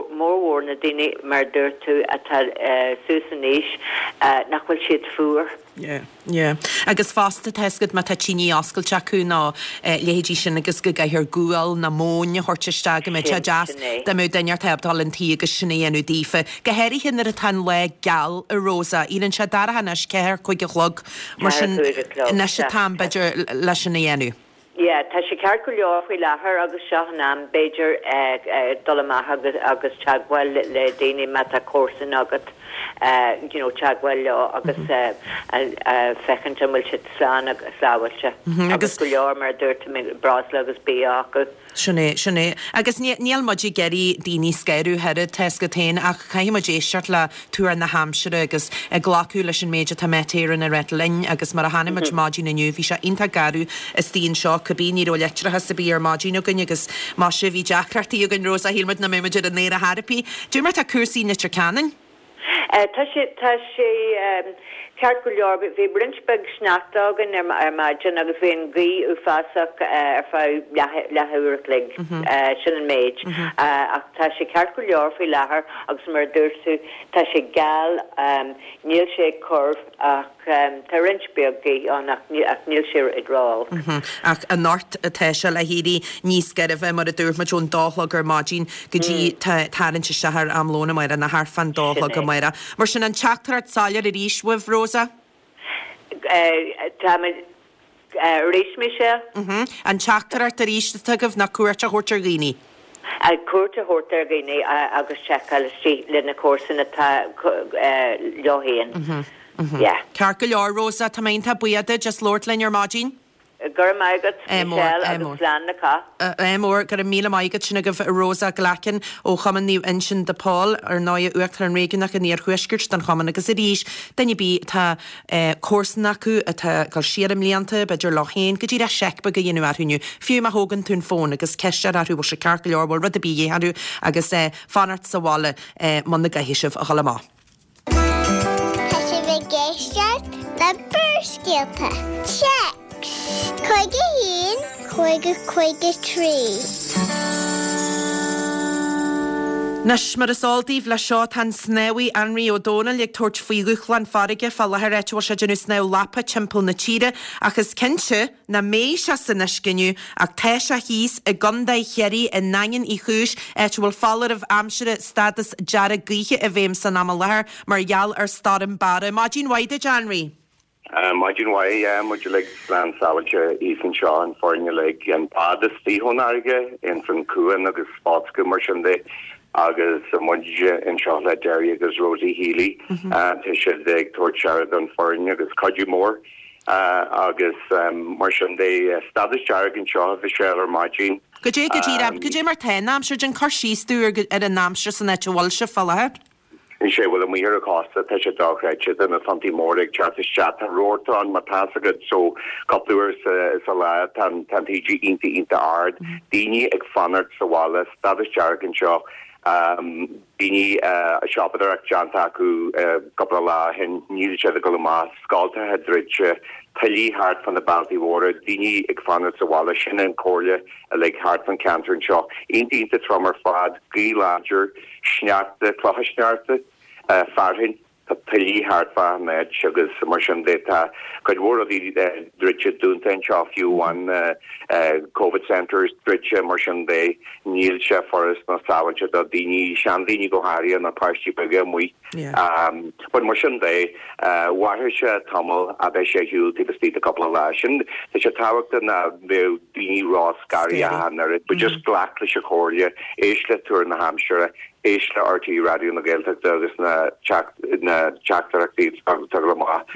mórmhór na daoine mar a dúirt tú atá suas in aois nach bhfuil siad fuar. Yeah. Yeah. Agus fosta, tá 'fhios agat má tá tine oscailte acu nó leithéidí sin agus go gcaithfear gual nó móin a thabhairt isteach go mbeadh sé deas dá mbeadh duine ar ábalta dul 'un tí agus sin a dhéanamh daofa. Go háirithe nuair atá an lá geal, a Rosa. Éiríonn sé dorcha anois, ceathair, cúig a chlog, mar sin anois an t-am b'fhéidir leis sin a dhéanamh. Yeah, tá sé ceart go leor faoi láthair agus seo an am, b'fhéidir, dul amach agus agus teagmháil le daoine má tá comharsan agat, you know, teagmháil leo agus féachaint an bhfuil siad slán agus sábháilte. Agus go leor, mar a dúirt tú, breosla agus bia acu. Sin é, sin é. Agus níl muid ag iarraidh daoine a scanrú ach oiread, tá 'fhios agat féin, ach caithfidh muid éisteacht le tuar na haimsire agus ag glacadh leis an méid atá Met Éireann ag ráit linn agus mar a chonaic muid maidin inniu, bhí sé iontach garbh istigh anseo, cibé, ní raibh leictreachas ar bith ar maidin againn agus maise, bhí deacrachtaí againn, Rosa, shíl muid nach mbeadh muid ar an aer ar chor ar bith. Cad é mar atá cúrsaí i Leitir Ceanainn? Tá sé, tá sé ceart go leor. Bhí roinnt beag sneachta againn ar maidin agus bhí an ghaoth uafásach ar feadh leath uair a chloig. Sin an méid. Ach tá sé ceart go leor faoi láthair agus mar a dúirt tú, tá sé geal, níl sé ag cur ach tá roinnt beag gaoth ann ach níl sé ag ró-olc. Ach anocht tá sé le héirí níos gairbhe mar a dúirt muid ón dó a chlog ar maidin go dtí tarraingt isteach ar am lóin amárach nó thart fán dó a chlog amárach. Mar sin an teachtaireacht soiléir arís uaibh, Rosa? Táimid arís, Michelle? An teachtaireacht arís atá agaibh ná cuairt a thabhairt ar dhaoine. Cuairt a thabhairt ar dhaoine agus seiceáil istigh le na comharsana atá leo féin. Yeah. Ceart go leor, Rosa, tá mé iontach buíoch duit as labhairt linn ar maidin. Go raibh maith agat, Michelle, agus slán le cách. Ádh mór, go raibh míle maith agat. Sin agaibh Rosa Glackin ó Chumann Naomh Uinseann de Pól, ar ndóigh, Uachtarán Réigiúnach an Iarthuaiscirt don Chumann agus arís, duine ar bith atá comharsan acu atá ag dul siar i mblianta, b'fhéidir leo féin, go díreach seic beag a dhéanamh orthu inniu, fiú má thógann tú an fón agus ceist a chur orthu bhfuil sé ceart go leor, bhfuil rud ar bith de dhíth orthu agus fanacht sa bhaile muna gcaithfidh sibh a dhul amach. Tá sibh ag éisteacht le Barrscéalta. Téacs 51 50 53. Anois, mar is eol daoibh, leis seo tá an snámhaí Anraí Ó Domhnaill ag tabhairt faoi dhúshlán farraige fá láthair áit a bhfuil sé ag déanamh snámh lapa timpeall na tíre ach is cinnte nach mbeidh sé san uisce inniu ach tá sé thíos i gContae Chiarraí i nDaingean Uí Chúis áit a bhfuil foláireamh aimsire stádas dearg gaoithe i bhfeidhm san am i láthair mar gheall ar Stoirm Barra. Maidin mhaith duit, Anraí. Maidin mhaith, yeah, muid uilig slán sábháilte thíos anseo, an foireann uilig, an bád istigh ón fharraige, ins an cuan agus foscadh mar sin de agus muid anseo le Derry agus Rosie Healy, tá siad ag tabhairt aire don foireann agus cuidiú mór agus mar sin de, stádas dearg anseo a Mhichelle ar maidin. Goidé go díreach, goidé mar tá an aimsir, déan cur síos dúinn ar an aimsir san áit a bhfuil sibh fá láthair. Sea, bhuel, amuigh ar an chósta, tá sé dochreidte, tá na tonntaí móra ag teacht isteach, tá rabharta ann, má tá's agat, so cúpla uair sa lá tá an taoide iontach, iontach ard, daoine ag fanacht sa bhaile, stádas dearg anseo, daoine, siopadóireacht déanta acu cúpla lá ó shin, níl siad ag dul amach, scoltacha druidte, tuillí thart fá na bealtaí mhóra, daoine ag fanacht sa bhaile, sin an chomhairle uilig thart fán cheantar anseo. Iontach, iontach trom ar fad, gaoth láidir. sneachta, clocha sneachta, fearthainn, tá tuillí thart fá an áit agus mar sin de. Tá cuid mhór rudaí druidte, dúnta anseo, fiú amháin Covid centres druidte mar sin de. Níl sé furast ná sábháilte do daoine, seandaoine go háirithe nó páistí beaga amuigh. But mar sin de, mhairfeadh sé tamall ach beidh sé ar shiúl taobh istigh de cúpla lá. Sin, tá sé tábhachtach ná bheadh daoine ró-scary ach an oiread, but just glac leis an chomhairle, éist le tuar na haimsire, éist le RTÉ Raidió na Gaeltachta agus na na teachtaireachtaí atá ag dul amach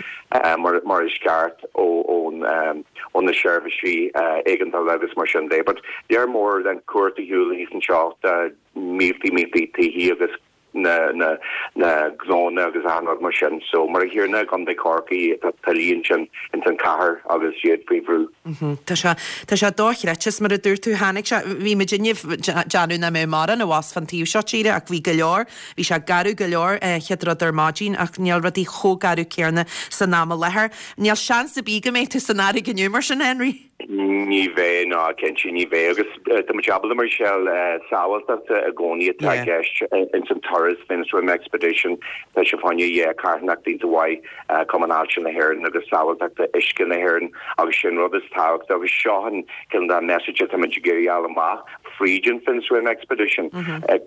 mar mar is ceart ó ón ó na seirbhísí éigeandála agus mar sin de. But lear mór den chumhacht ar shiúl thíos anseo, tá míltí míltí tithí agus na na na gnónna agus achan rud mar sin. So mar a chéanna i gContae Chorcaí tá tuillí ansin ins an chathair agus iad faoi bhrú. Tá sé tá sé dochreidte is mar a dúirt tú tháinig sé bhí muid inniu ag déanamh nach mbeadh mórán abhus fán taobh seo tíre ach bhí go leor bhí sé garbh go leor chéad rud ar maidin ach níl rudaí chomh garbh céanna san am i láthair. Níl seans ar bith go mbeidh tú san fharraige inniu mar sin Henry? Ní bheidh, ná cinnte ní bheidh. Agus tá muid ábalta mar Michelle, sábháilteachta i gcónaí atá i gceist ins an turas Finswim Expedition. Tá sé fá choinne yeah, carthanacht iontach mhaith, Cumann Ailse na hÉireann agus sábháilteachta uisce na hÉireann agus sin rud is tábhachtaí agus seo an cineál de message atá muid ag iarraidh a fháil amach fríd an Finswim Expedition.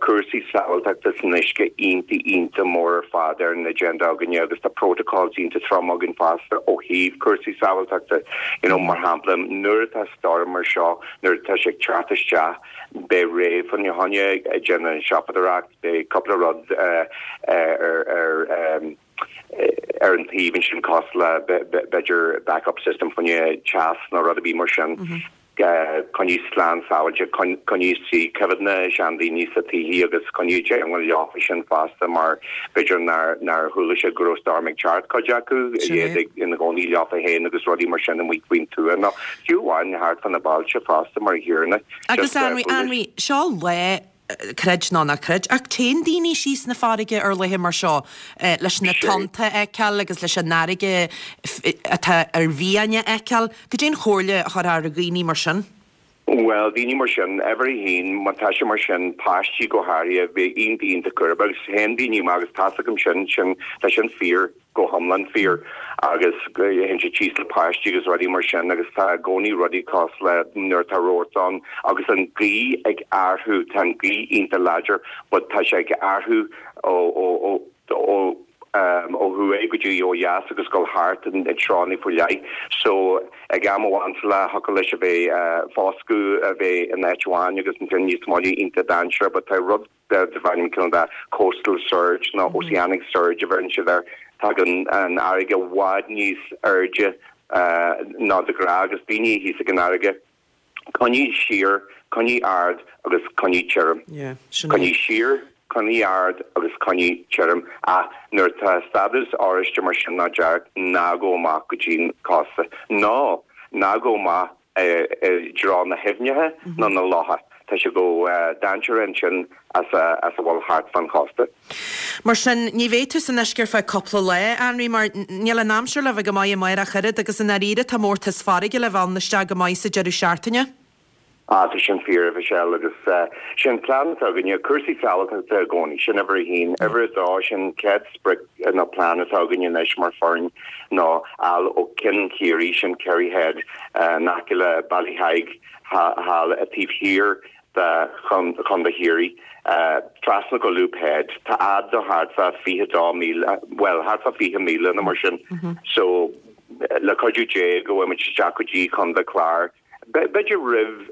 Cúrsaí sábháilteachta san uisce iontach iontach mór ar fad ar an agenda againne agus tá protocols iontach trom againn fosta ó thaobh cúrsaí sábháilteachta. You know, mar shampla, nuair atá stoirm mar seo, nuair atá sé ag teacht isteach, beidh Ray fá choinne ag déanamh an siopadóireacht, beidh cúpla rud ar ar ar an taobh ansin cosúil le b'fhéidir backup system fá choinne teas nó rud ar bith mar sin. Coinnigh slán sábháilte, coinnigh istigh, coimhéad na seandaoine sa tithí agus coinnigh i dteagmháil leofa sin fosta mar b'fhéidir nár nár chuala siad go raibh storm ag teacht, cuid acu, iad ag ina gcónaí leofa féin agus rudaí mar sin amuigh faoin tuath nó fiú amháin thart fá na bailte fosta mar a chéanna. Agus Anraí, Anraí, seo lá creid nó ná creid, ach téann daoine síos 'na farraige ar laethe mar seo leis na tonnta a fheiceáil agus leis an fharraige atá ar mhian a fheiceáil. Cad é an chomhairle a chuirfeá ar dhaoine mar sin? Bhuel, daoine mar sin, uimhir a haon, má tá sé mar sin, páistí go háirithe, bheith iontach iontach cúramach agus théann daoine amach agus tá's agam sin, sin, tá sin fíor. go hiomlán fíor agus théann siad síos le páistí agus rudaí mar sin agus tá i gcónaí rudaí cosúil le nuair atá rabharta ann agus an ghaoth ag athrú, tá an ghaoth iontach láidir but tá sé ag athrú ó ó ó ó ó thuaidh go dtí ó dheas agus dul thart i dtreonna faoi leith so ag am amháin sa lá thiocfadh leis a bheith foscadh a bheith in áit amháin agus ansin níos moille iontach dainséarach but tá rud darb ainm cineál de coastal surge nó oceanic surge a bheireann siad air. Tagann an fharraige i bhfad níos airde ná de ghnáth agus daoine thíos ag an fharraige, coinnigh siar, coinnigh ard agus coinnigh tirim. Coinnigh siar, coinnigh ard agus coinnigh tirim. Ach nuair atá stádas oráiste mar sin nó dearg, ná gabh amach go dtí an cósta. Nó ná gabh amach i dtreo na haibhneacha nó na locha. Tá sé chomh dainséarach ansin as a bhfuil thart fán chósta. Mar sin, ní bheidh tú san uisce ar feadh cúpla lá, a Anraí, mar níl an aimsir le bheith go maith amárach ach oiread, agus i ndáiríre tá mórtas farraige le bheith ann isteach go maith sa deireadh seachtaine. Ah, tá sin fíor, a Mhichelle, agus sin plean atá againne, cúrsaí sábháilteachta i gcónaí, sin uimhir a haon. Uimhir a dó, sin chéad sprioc nó plean atá againne anois mar foireann ná fháil ó Cinn Chiarraí, sin Kerry Head, in aice le Ballyheigue thall taobh thiar de Chontae Chiarraí, trasna go Loop Head. Tá fhad do thart fá 22 míle, bhuel, thart fá 20 míle nó mar sin. So, le cuidiú Dé go bhfuil muid isteach go dtí Contae Clár. B'fhéidir roimh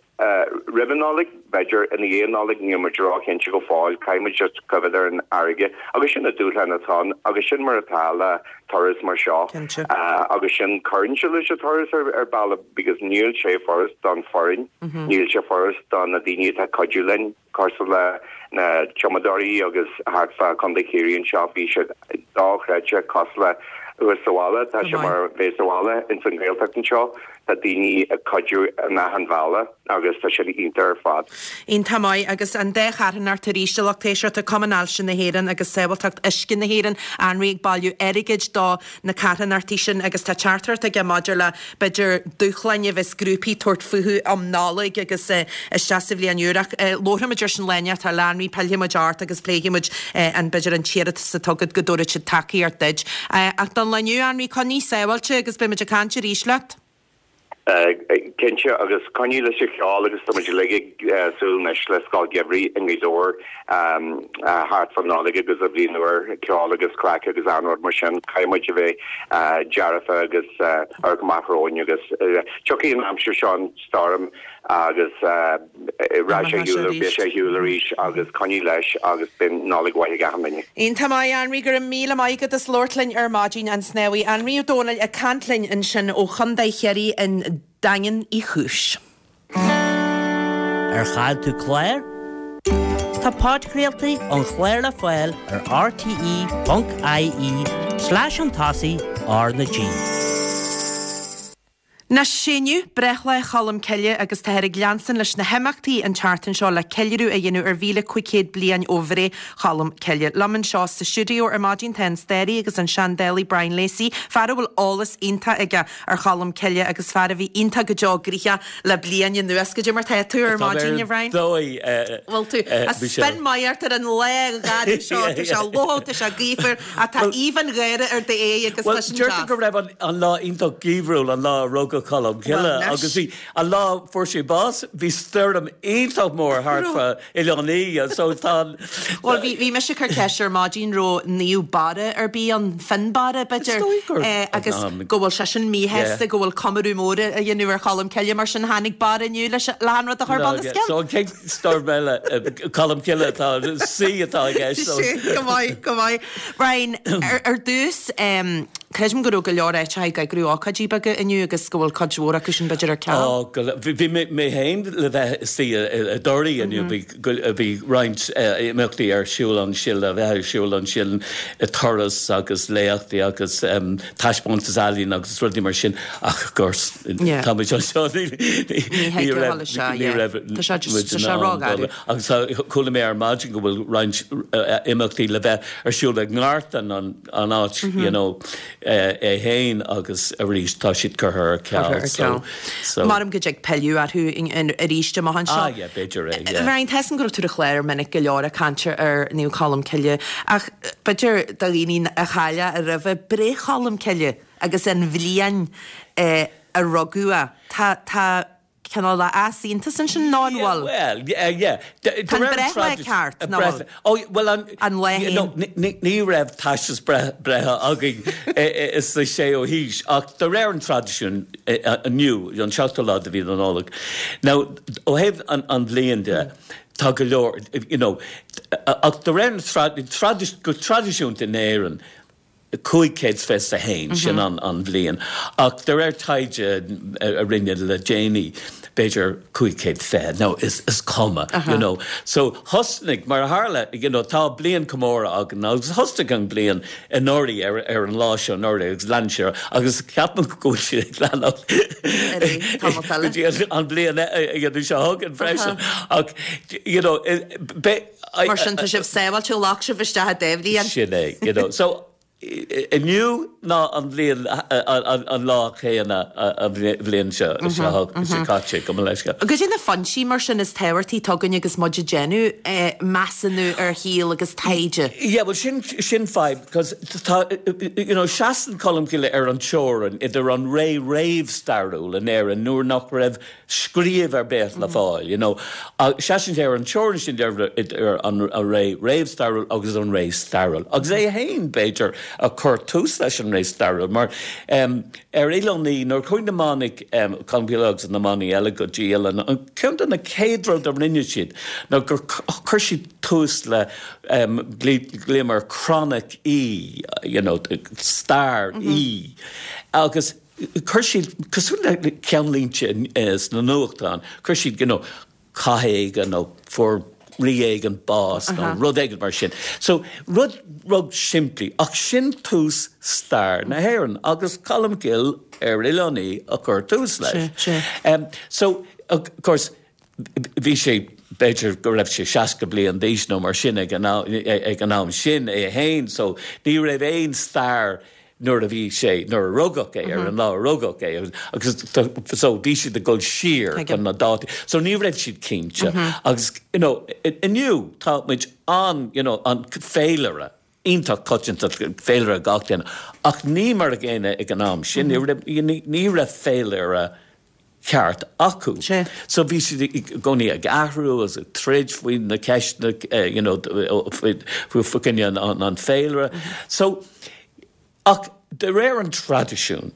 roimh an Nollaig, b'fhéidir i ndiaidh an Nollaig, níl muid róchinnte go fóill, caithfidh muid just coimhéad ar an fharraige agus sin na dúshláin atá ann agus sin mar atá le turas mar seo agus sin cuireann sé leis an turas ar ar bealach because níl sé furast don foireann, níl sé furast do na daoine atá ag cuidiú linn. Cosúil le na tumadóirí agus thart fá Contae Chiarraí anseo bhí siad dochreidte cosúil le thuas sa bhaile, tá sé mar bheith sa bhaile ins an Ghaeltacht anseo, tá daoine ag cuidiú in achan bhealach agus tá sin iontach ar fad. Iontach maith agus an dá charthanacht arís a lucht éisteachta, Cumann Ailse na hÉireann agus Sábháilteacht Uisce na hÉireann, Anraí ag bailiú airgid do na carthanachtaí sin agus tá teachtaireacht aige maidir le, b'fhéidir, dúshláin a bheas grúpaí ag tabhairt fúthu um Nollaig agus isteach sa bhliain úr. Ach labharfaimid ar sin lá inteacht eile, a Anraí, pillfidh muid ort agus pléifidh muid an, b'fhéidir, an t-iarratas atá agat go dtabharfaidh siad tacaíocht duit. Ach don lá inniu, a Anraí, coinnigh sábháilte agus beidh muid ag caint arís leat. Cinnte, agus coinnigh leis an cheol agus tá muid uilig ag súil anois le Scoil Gheimhridh i nGaoth Dobhair thart fán Nollaig agus an Bhliain Úr, ceol agus craic agus achan rud mar sin. Caithfidh muid a bheith dearfa agus amharc amach romhainn agus tiocfaidh an aimsir seo an stoirm agus Rachaidh sé ar shiúl, beidh sé ar shiúl arís agus coinnigh leis agus beidh Nollaig mhaith ag achan duine. Iontach maith, Anraí, go raibh míle maith agat as labhairt linn ar maidin, an snámhaí Anraí Ó Domhnaill ag caint linn ansin ó Chontae Chiarraí i nDaingean Uí Chúis. Ar chaill tú clár? Tá podchraoltaí an chláir le fáil ar rte.ie slash chun tosaigh R na G. Anois, sé inniu breithlá Cholm Cille agus táthar ag leanstan leis na himeachtaí an tseachtain seo le ceiliúradh a dhéanamh ar 1,500 bliain ó bhreith Cholm Cille. Liom anseo sa stiúideo ar maidin tá an staraí agus an seandálaí Brian Lacey, fear a bhfuil eolas iontach aige ar Cholm Cille agus fear a bhí iontach go deo gnoitheach le bliain anuas. Goidé mar tá tú ar maidin, a Bhrian? Dóigh, Bhfuil tú? A Michelle. Spin maith ort ar an lá gharbh seo, tá sé fliuch, tá sé gaofar. Ach tá aoibh an gháire ar d'aghaidh agus Bhuel, tá sin deirtear deas. go raibh an lá iontach geimhriúil an lá a rugadh Colm Cille Bhuel, anois. agus bhí, an lá a fuair sé bás, bhí stoirm iontach mór thart Raibh. fa Oileán Í so tá an. Bhuel, bhí, bhí mise ag cur ceist ar maidin raibh Naomh Barra ar bith ann, Fionnbarra, Is b'fhéidir, dóigh gur, eh, agus ná, go bhfuil seisean míshásta yeah. go bhfuil comóradh mór á dhéanamh ar Cholm Cille, mar sin tháinig Barra inniu leis, le an rud a chur No, bunoscionn. yeah. So an chéad stoirm eile, eh, Colm Cille atá, C atá i gceist, so. Sin, go maith, go maith. Brian, ar dtús, creidim go raibh go leor áiteacha ag eagrú ócáidí beaga inniu agus go bhfuil cuid mhór acu sin b'fhéidir ar ceal. Ó, go leor. Bhí mé féin le bheith istigh i dToraí inniu. Bhí roinnt imeachtaí ar siúl ansin, le bheith ar siúl ansin, turas agus léachtaí agus taispeántas ealaíon agus rudaí mar sin ach of course tá muid anseo ní raibh ní raibh muid in ann dul. Agus chuala mé ar maidin go bhfuil roinnt imeachtaí le bheith ar siúl i nGartan, an áit you know é féin agus arís tá siad curtha ar ceal so, so. Maram go dtig pilleadh orthu arís amach anseo. Ah yeah, b'fhéidir é, yeah. Brian, tá 'fhios a'm go raibh tú ar an chlár minic go leor ag caint ar Naomh Colm Cille ach b'fhéidir do dhaoine a chaill é roimhe, breith Cholm Cille agus an bhliain a rugadh é, tá, tá, cineál de easaontas ansin nó an bhfuil? Bhuel, yeah. Tá an breithlá ceart, nó bhfuil? Ó, bhuel an... An lá féin. No, ní raibh teastas breithe againn sa séú haois, ach de réir an traidisiúin inniu, an seachtú lá de mhí na Nollag. Now, ó thaobh an bhliain de, tá go leor, you know, ach de réir na, go traidisiúnta in Éirinn, 521, sin an bhliain, ach de réir taighde a rinneadh le déanaí, b'fhéidir 520, nó is cuma, you know. So thosnaigh, mar a tharla, you know, tá bliain comóradh againn agus thosnaigh an bliain anuraidh ar ar an lá seo anuraidh agus lean sé agus ceapaim go bhfuil sé ag leanacht go dtí an bhliain seo chugainn freisin. Ach, you know, Mar sin, tá sibh sábháilte, ghlac sibh isteach an dá bhliain. Sin é, you know. So. Inniu ná an bhliain, an lá céanna an bhliain seo caite, gabh mo leithscéal. Goidé na foinsí mar sin is tábhachtaí atá againn agus muid ag déanamh measúnú ar shaol agus taighde? Yeah, bhuel sin, sin fadhb, cos tá, you know, seasann Colmcille ar an teorainn idir an ré réamhstairiúil in Éirinn nuair nach raibh scríobh ar bith le fáil, you know. Seasann sé ar an teorainn sin idir an ré réamhstairiúil agus an ré stairiúil. Agus é féin, b'fhéidir, a chuir tús leis an ré stairiúil, mar ar Oileán Í, nuair a chuaigh na manaigh, Colmcille agus na manaigh eile go dtí Oileán Í, ceann de na chéad rud a rinne siad ná gur chuir siad tús le, glaoim air Croinic Í, you know, stair Í. Agus. Chuir siad, cosúil le ceannlínte sna nuachtáin, chuir siad, you know, cath éigin nó fuair rí éigin bás nó rud éigin mar sin. So, rud rud simplí, ach sin tús stair na hÉireann agus Colmcille ar Oileán Í a chuir tús leis. So, of course, bhí sé, b'fhéidir go raibh sé 60 bliain d'aois nó mar sin ag an am sin é féin, so ní raibh aon stair nuair a bhí sé, nuair a rugadh é, ar an lá a rugadh é, agus so bhí siad ag dul siar chun na dátaí, so ní raibh siad cinnte agus you know inniu tá muid an, you know, an féilire iontach coitianta, féilire gach duine, ach ní mar a gcéanna ag an am sin, ní raibh féilire ceart acu. So bhí siad i gcónaí ag athrú agus ag troid faoi na ceisteanna you know faoi choinne an féilire. So ach de réir an traidisiúin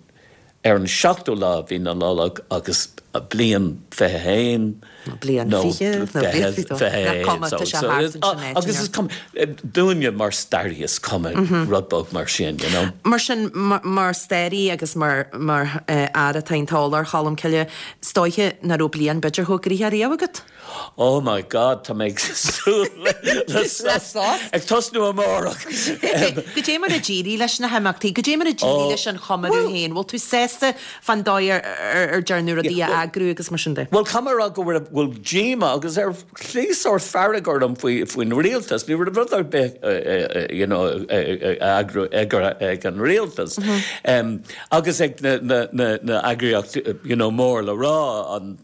ar an seachtú lá mhí na Nollag agus bliain 21 bliain nó 20 nó bliain 21 so agus is cuma dúinne mar staraí is cuma rud beag mar sin you know. Mar sin mar staraí agus mar mar fhear atá iontach eolach ar Cholm Cille is dóiche nach raibh bliain b'fhéidir chomh gnoitheach riamh agat? Oh my God tá mé ag súil le sos ag tosnú amárach. Goidé mar a d'éirigh leis na himeachtaí, goidé mar a d'éirigh leis an chomóradh féin, bhfuil tú sásta fán dóigh ar dearnadh rudaí a eagrú agus mar sin de. Bhuel, caithfidh mé a rá go raibh, bhfuil díomá agus ar shlí sórt fearg orm faoi, faoin rialtas. Ní raibh rud ar bith you know eagrú ag an rialtas agus ag na, na, na, na eagraíochtaí you know mór le rá, an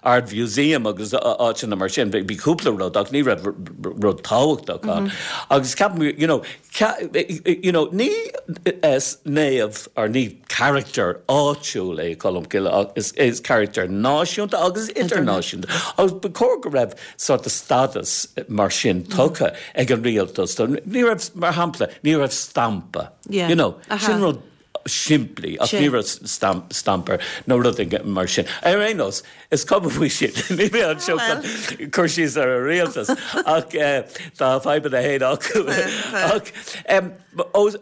Ard Mhúsaem agus áiteanna mar sin. Bhí cúpla rud ach ní raibh rud tábhachtach ann. Agus ceapaim, you know, you know, ní naomh or ní character áitiúil é Colmcille ach is is character náisiúnta agus idirnáisiúnta. Agus ba chóir go raibh sort of status mar sin tugtha ag an rialtas. Ní raibh, mar shampla, ní raibh stampa, you know, sin rud simplí ach ní raibh stampa nó rud éigin mar sin. Ar aon nós, is cuma faoi sin, níl mé anseo chun cur síos ar an rialtas ach tá a fadhbanna féin acu. Ach os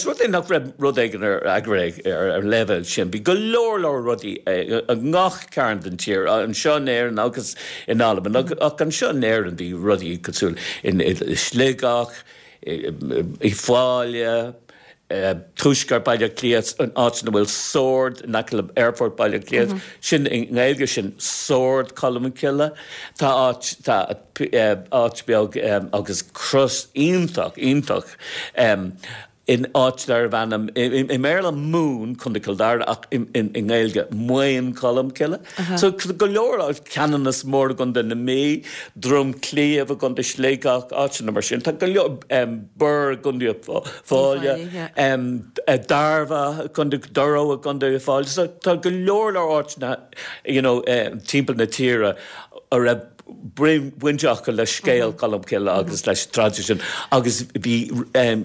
rud é nach raibh rud éigin ar eagraithe ar an leibhéal sin, bhí go leor leor rudaí i ngach cearn den tír, anseo in Éirinn agus in Albain, ach anseo in Éirinn bhí rudaí cosúil i Sligeach, Uíbh Fhailí, Tuaisceart Baile Átha Cliath, an áit ina bhfuil Sord in aice le Aerfort Baile Átha Cliath, sin i nGaeilge sin Sord Cholmcille. Tá áit, tá áit beag agus cros iontach, iontach in áit darbh ainm, i mBéarla Moone, Contae Chill Dara, ach i nGaeilge Maon Cholm Cille. So go leor áit, Ceanannas Mór i gContae na Mí, Droim Cliabh i gContae Sligeach, áiteanna mar sin. Tá go leor, Birr i gContae Uíbh Fhailí, Dairbhre, Contae Durrow i gContae Uíbh Fhailí. So tá go leor leor áiteanna you know timpeall na tíre a raibh baint acu le scéal Cholmcille agus leis an traidisiún agus bhí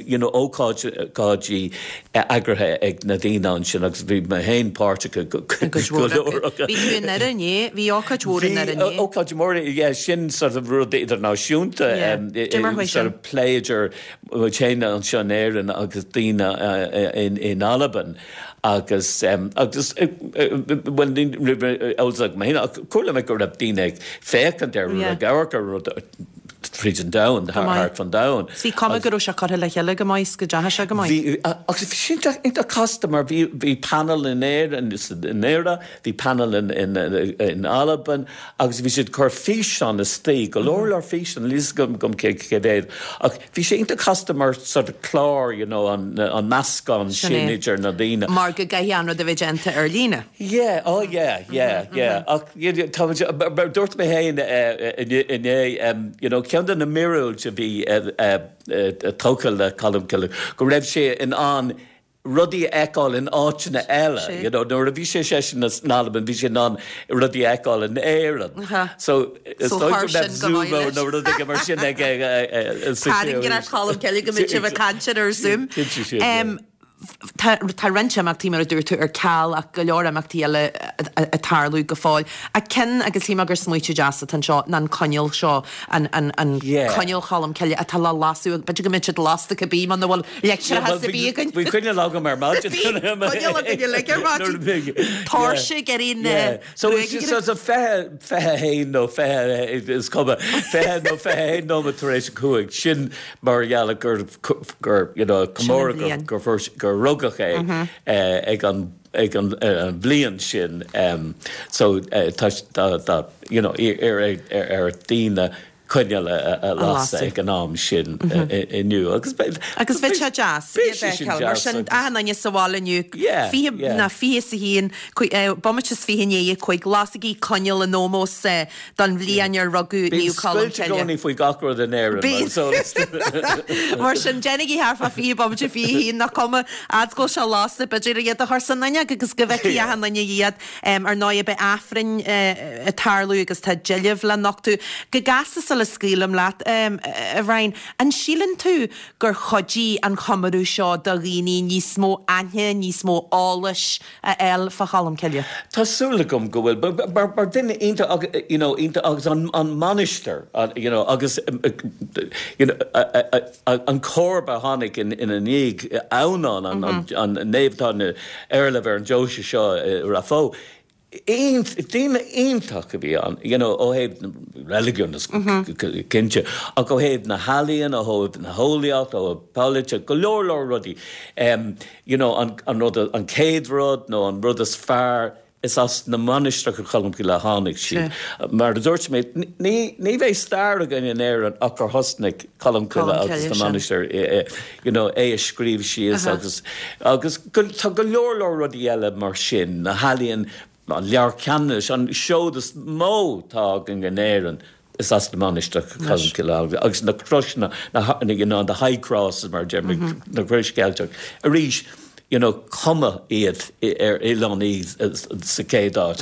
you know ócáidí eagraithe ag na daoine ansin agus bhí mé féin páirteach i go leor acu. Bhí tú i nDoire inné, bhí ócáid mhór i nDoire inné. Bhí ócáid mhór, yeah, sin sort of rud idirnáisiúnta, sort of plé idir muid féin anseo in Éirinn agus daoine in Albain agus agus bhuel ní raibh eolas agam féin ach chuala mé go raibh daoine ag féachaint ar rud, ag amharc ar rud. Tríd an domhan, thart fan domhan. Bhí cuma go raibh sé curtha le chéile go maith 's go dteachaigh sé go maith. Bhí, agus bhí sé iontach casta mar bhí, bhí panel in Éirinn, i nDoire, bhí panel in, in, in Albain agus bhí siad ag cur físeán istigh, go leor leor físeán, níl fhios agam cé, cé mhéad, ach bhí sé iontach casta mar sort of clár, you know, an, an meascán sin idir na daoine. Mar go gcaithfidh an rud a bheith déanta ar líne. Yeah, oh yeah, yeah, yeah. Ach tá muid, mar dúirt mé féin inné, you know, ceann de na míorúilt a bhí tógtha le Colmcille, go raibh sé in ann rudaí a fheiceáil in áiteanna eile, you know, nuair a bhí sé seisean in Albain, bhí sé in ann rudaí a fheiceáil in Éirinn. So, is dóigh go mbeadh Zoom nó rud éigin mar sin aige sa Tarraingíonn Colmcille go mbeidh sibh ag caint ar Zoom. Cinnte sin, yeah. Tá roinnt imeachtaí, mar a dúirt tú, ar ceal ach go leor imeachtaí eile ag tarlú go fóill. Ach ceann, agus shíl mé gur smaoitiú deas atá anseo, ná an coinneal seo, an coinneal Cholm Cille atá le lasadh, b'fhéidir go mbeidh siad lasta cibé muna bhfuil leictreachas ar bith againn. Bhí coinneal agam ar maidin. Bhí coinneal againn uilig ar maidin. Tóirse ag éirí na So it's a 20, 21 nó 20, is cuma, 20 nó 21 nóiméad tar éis a 5, sin mar gheall gur, gur, you know, comóradh gur, gur, gur rugadh é ag an, ag an bhliain sin. So tá, tá, you know, ar, ar daoine coinneal a lasadh ag an am sin inniu agus beidh Agus bheadh sé deas iad a fheiceáil. Mar sin, achan duine sa bhaile inniu, fiche ná 21, bomaite is 20 i ndiaidh a 5, lasaigí coinneal in ómós don bhliain ar rugadh Naomh Colm Cille. Bíonn scoilt i gcónaí faoi gach rud in Éirinn, mar is eol duit. Mar sin, déanaigí thart fá 20 bomaite 21, nach cuma, fhad is go bhfuil sé lasta, b'fhéidir iad a chur san fhuinneog agus go bhfeicfidh achan duine iad. Ar ndóigh, beidh Aifreann ag tarlú agus tá deilbh le nochtadh. Go gasta sula scaoilim leat, a Bhriain, an síleann tú gur chuidigh an chomóradh seo do dhaoine níos mó aithne, níos mó eolais a fháil fá Cholm Cille? Tá súil agam go bhfuil. Mar duine iontach, you know, iontach agus an mainistir, you know, agus, you know, An comharba a tháinig ina ndiaidh, Adhamhnán, an naomh atá ina éarlamh ar an deoise seo i Rath Bó, duine iontach a bhí ann, you know, ó thaobh reiligiún is cinnte, ach ó thaobh na healaíon, ó thaobh na heolaíocht, ó thaobh polaite, go leor leor rudaí. You know, an rud, an chéad rud nó an rud is fearr, Is as na mainistreacha Cholmcille a tháinig siad. Mar a dúirt mé, ní bheidh stair againn in Éirinn ach gur thosnaigh Colmcille agus na mainistir, you know, é a scríobh síos agus agus tá go leor leor rudaí eile mar sin, na healaíon, an Leabhar Ceannanais, an seod is mó atá againn in Éirinn. Is as na mainistreacha Colmcille agus na croiseanna, you know, the high crosses mar a deir muid, na crois Cheilteach. Arís, you know, cumadh iad ar Oileán Í sa chéad áit.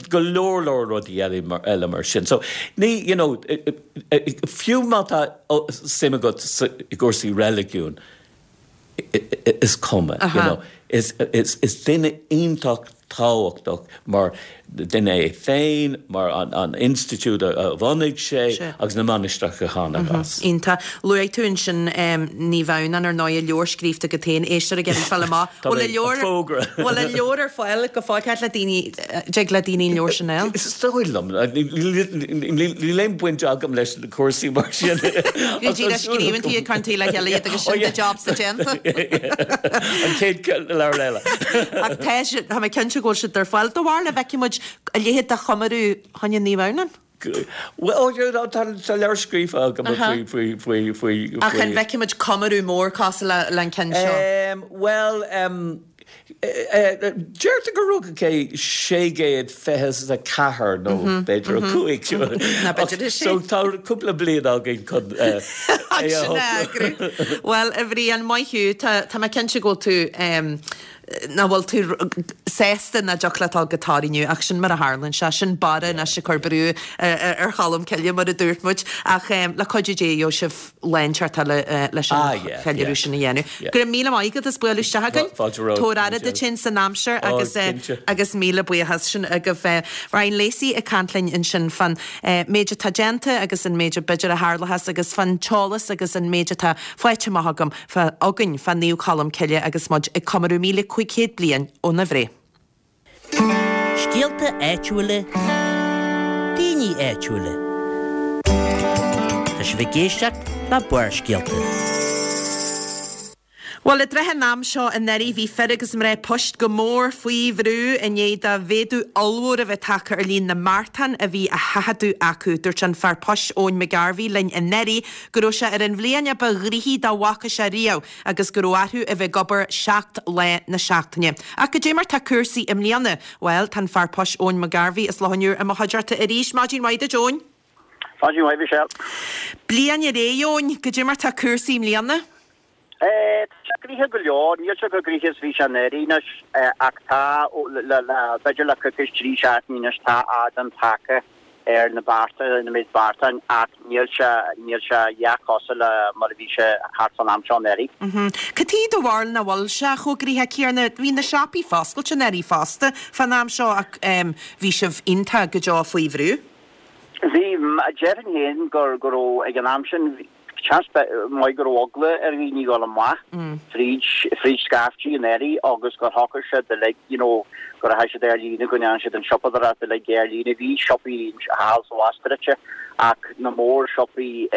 Go leor leor rudaí eile mar sin. So, ní, you know, fiú má tá suim agat i gcúrsaí reiligiúin, is cuma, you know. Is duine iontach tábhachtach mar duine é féin, mar an institiúid a bhunaigh sé agus na mainistreacha a tháinig as. Iontach. Luaigh tú ansin Naomh Adhamhnán, ar ndóigh, leabhar scríofa agat féin, éisteoir ag iarraidh fáil amach. Bhfuil an leabhar, bhfuil an leabhar ar fáil go fóill? Cad le daoine, dtig le daoine an leabhar sin a fháil? Is dóigh liom. Níl aon bhaint agam leis na cúrsaí mar sin. Go díreach scríobhann tú iad, cuireann tú le chéile iad agus sin do jobsa déanta. An chéad leabhar eile. Ach tá sé, tá mé cinnte go bhfuil siad ar fáil. Do bharúil an bhfeicfidh muid a leithéid de chomóradh fá choinne Naomh Adhamhnán? Bhuel, tá leabhar scríofa agam faoi, faoi, faoi, faoi. Ach an bhfeicfidh muid comóradh mór cosúil le an ceann seo? Bhuel, Deirtear gur rugadh é 624 nó b'fhéidir 5. Ná b'fhéidir é sin. So tá cúpla bliain againn chun é a Sin a eagrú. Bhuel, a Bhriain, maith thú. Tá mé cinnte go bhfuil tú, nach bhfuil tú sásta nach dtiocfadh leat a dhul go Toraigh inniu ach sin mar a tharlaíonn sé. Sin Barra anois ag cur brú ar Cholm Cille mar a dúirt muid. Ach le cuidiú Dé gheobhaidh sibh lá inteacht eile leis an cheiliúradh sin a dhéanamh. Go raibh míle maith agat as bualadh isteach chugainn. Tabhair aire duit féin san aimsir agus agus míle buíochas sin agaibh. Brian Lacey ag caint linn ansin fán méid atá déanta agus an méid a b'fhéidir a tharlóchas agus fán t-eolas agus an méid atá faighte amach agam againn fá Naomh Colm Cille agus muid ag comóradh 1500 bliain óna bhreith. Scéalta áitiúla, daoine áitiúla. Tá. sibh ag éisteacht le Barrscéalta. Bhuel, i dtrátha an am seo anuraidh bhí fir agus mná poist go mór faoi bhrú i ndiaidh do mhéadú ollmhór a bheith tagtha ar líon na mbeartán a bhí á sheachadadh acu. Dúirt an fear poist Eoin McGarvey linn anuraidh go raibh sé ar an bhliain a ba ghnoithí dá bhfaca sé riamh agus go raibh orthu a bheith ag obair 7 lá na seachtaine. Ach goidé mar tá cúrsaí i mbliana? Bhuel, tá an fear poist Eoin McGarvey as Loch an Iúir i mo chuideachta arís. Maidin mhaith duit Eoin. Maidin mhaith Michelle. Bliain ar aghaidh Eoin, goidé mar tá cúrsaí i mbliana? Tá sé gnoitheach go leor, níl sé chomh gnoitheach is bhí sé anuraidh anois ach tá, le, b'fhéidir le coicís, 3 seachtainí anois, tá ardán tagtha ar na bearta, ar an méid beartán ach níl sé, níl sé a dhath cosúil le mar a bhí sé thart fán am seo anuraidh. Cad chuige do bharúil nach bhfuil sé chomh gnoitheach céanna? Bhí na siopaí foscailte anuraidh fosta fán am seo ach bhí sibh iontach go deo faoi bhrú. Bhí, déarfainn féin gur, go raibh, ag an am sin, Seans maith go raibh eagla ar dhaoine dhul amach fríd, fríd scaiftí anuraidh agus gur shocraigh siad uilig, you know, go rachaidh siad ar líne, go ndéanfaidh siad an siopadóireacht uilig ar líne. Bhí siopaí thall is abhus druidte ach na mór-shiopaí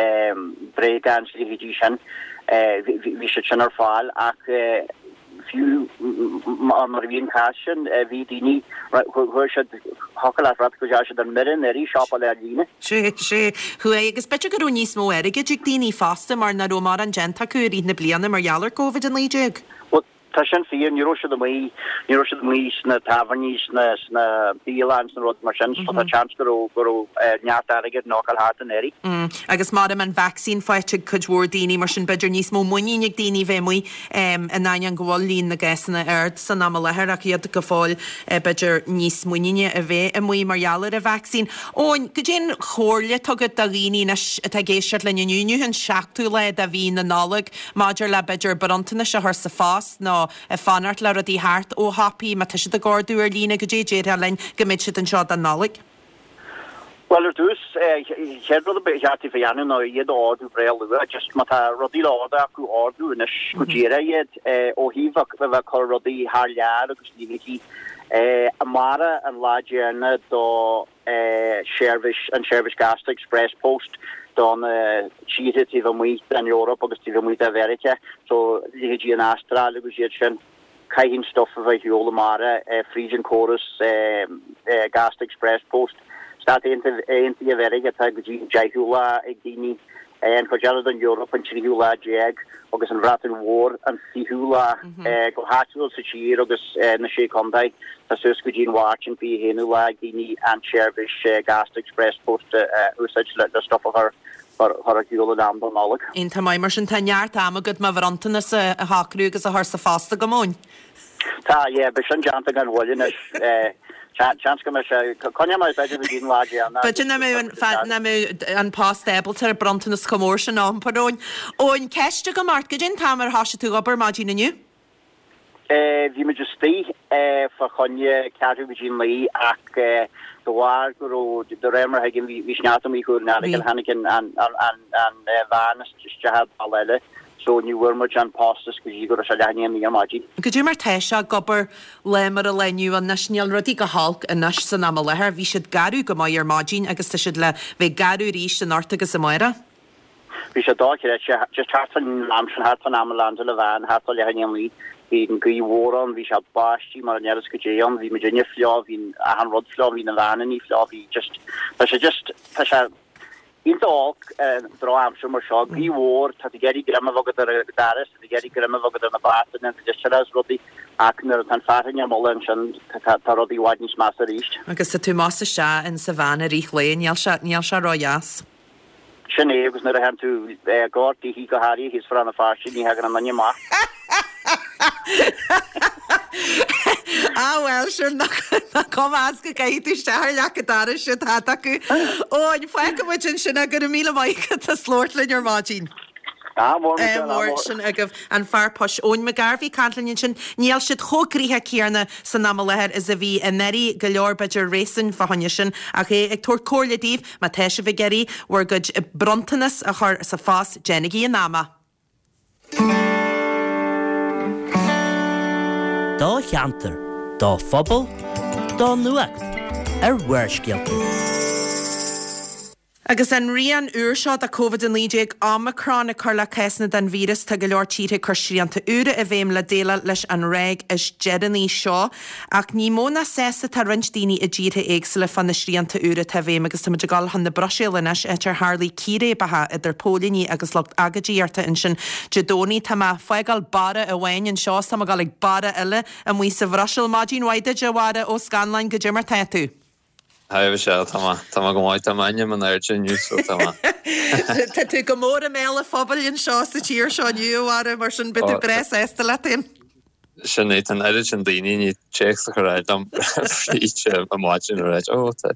bréagáin is a leithéidí sin, bhí siad sin ar fáil ach, Fiú mar a bhí an cás sin, bhí daoine, chuaigh siad, thiocfadh leat rá go ndeachaigh siad ar mire anuraidh siopadh ar líne. Sea, sea, chuaigh, agus b'fhéidir go raibh níos mó airgid ag daoine fosta mar nach raibh mórán déanta acu i rith na bliana mar gheall ar Covid-19. Bhuel, tá sin fíor, ní raibh siad amuigh, ní raibh siad amuigh sna tábhairní, sna, sna bialanna, sna rudaí mar sin, so tá seans go raibh, go raibh neart airgid in fhágáil thart anuraidh. Agus maram an vacsaín faighte ag cuid mhór daoine, mar sin b'fhéidir níos mó muinín ag daoine bheith amuigh. In ainneoin go bhfuil líon na gcásanna ard san am i láthair ach iad go fóill b'fhéidir níos muiníne a bheith amuigh mar gheall ar an vacsaín. Eoin, goidé an chomhairle atá agat do dhaoine anois atá ag éisteacht linn inniu, inniu an seachtú lá de mhí na Nollag, maidir le b'fhéidir bronntanais a chur sa phost nó ag fanacht le rudaí theacht ó shiopaí má tá siad ag ordú ar líne, goidé a déarfá linn go mbeidh siad anseo don Nollaig? Bhuel, ar dtús, chéad rud a ba cheart daofa a dhéanamh ná iad a ordú breá luath. Just má tá rudaí le ordú acu, ordú anois go díreach iad. Ó thaobh a bheith ag cur rudaí thar lear agus leithéidí, amárach an lá deireanach do sheirbhís, an seirbhís gasta Express Post do na tíortha taobh amuigh den Eoraip agus taobh amuigh de Mheiriceá, so leithéidí an Astráil agus iad sin. Caithfidh an stuif a bheith ar shiúl amárach fríd an córas gasta Express Post. Stáit Aontaithe Mheiriceá tá go dtí an deichiú lá ag daoine, an chuid eile den Eoraip an tríú lá déag agus an Bhreatain Mhór an fichiú lá. Go háitiúil sa tír agus na Sé Chontae tá suas go dtí an Mháirt an 21ú lá ag daoine an tseirbhís gasta Express Post a úsáid le stuif a chur chur ar shiúl in am don Nollaig. Iontach maith, mar sin tá neart ama agat mo bhronntanas a shocrú agus a chur sa phost agam, Eoin. Tá, yeah, beidh sin déanta gan mhoill anois. Seans go mbeidh sé, coinneoidh mé b'fhéidir go dtí an lá deireanach. B'fhéidir nach mbeidh an, nach mbeidh an post ábalta ar bronntanas chomh mór sin a iompar, Eoin. Eoin, ceist agam ort, goidé an t-am ar thoisigh tú ag obair maidin inniu? Bhí muid istigh fá choinne ceathrú go dtí a naoi ach de bharr go raibh, de réir mar a thuigim, bhí sneachta amuigh Chúil an Earagail, tháinig an veain isteach ar bhealach eile so ní bhfuair muid an postas go dtí go raibh sé leath i ndiaidh a naoi ar maidin. Goidé mar tá sé ag obair lá mar an lá inniu anois, níl rudaí go holc anois san am i láthair, bhí siad garbh go maith ar maidin agus tá siad le bheith garbh arís anocht agus amárach. Bhí sé dochreidte, just thart fán am sin, thart fán am a landáil an veain, thart fá leath i ndiaidh a naoi, bhí an ghaoth mhór ann, bhí sé báistí mar an oiread goidé ann, bhí muidinne fliuch, bhí achan rud fliuch, bhí na veaineannaí fliuch, bhí just, tá sé just, tá sé iontach olc drochaimsir mar seo, gaoth mhór, tá tú ag iarraidh greim a bheith agat ar an doras, tá tú ag iarraidh greim a bheith agat ar na beartanna, na listeacha is rudaí, ach nuair atá an fearthainn á moladh ansin, tá tá rudaí i bhfad níos measa arís. Agus tá tú más isteach in sa veain i rith lae, níl sé, níl sé ródheas. Sin é, agus nuair a théann tú gar daoithi, go háirithe thíos fá Rann na Feirste, ní thagann aon duine amach. Ah bhuel, sin nach cuma as go gcaithfidh tú isteach ar leac an dorais siad thad acu. Eoin, fágfaidh muid ansin é, go raibh míle maith agat as labhairt linn ar maidin. Ádh mór, Michelle, ádh mór. Sin agaibh an fear poist Eoin McGarvey ag caint linn ansin. Níl siad chomh gnoitheach céanna san am i láthair is a bhí anuraidh, go leor b'fhéidir réasún fá choinne sin, ach é ag tabhairt comhairle daoibh má tá sibh ag iarraidh bhur gcuid bronntanas a chur sa phost, déanaigí in am é. Do cheantar, do phobal, do nuacht ar Bharrscéalta. Agus an rian úr seo de Covid-19, Omicron, ag cur le cásanna den víreas, tá go leor tíortha ag cur srianta úra i bhfeidhm le déileáil leis an ráig is deireanaí seo. Ach ní mó ná sásta atá roinnt daoine i dtíortha éagsúla fá na srianta úra atá i bhfeidhm agus tá muid ag dul chun na Bruiséile anois, áit ar tharlaigh círéibeacha idir póilíní agus lucht agóidíochta ansin Dé Domhnaigh. Tá mé ag fágáil Barra amháin anseo is tá mé ag dul ag Barra eile amuigh sa Bhruiséil. Maidin mhaith duit, a Bharra Ó Scanláin, goidé mar tá tú? Hi a Mhichelle, tá mé, tá mé go maith, tá m'ainm in airde inniu so tá mé. Tá tú go mór i mbéal an phobail anseo sa tír seo inniu, a Bharra, mar sin beidh tú breá sásta leat féin. Sin é, tá an oiread sin daoine i ndiaidh téacs a chur ar aghaidh liom fríd an maidin ag ráit, ó, tá,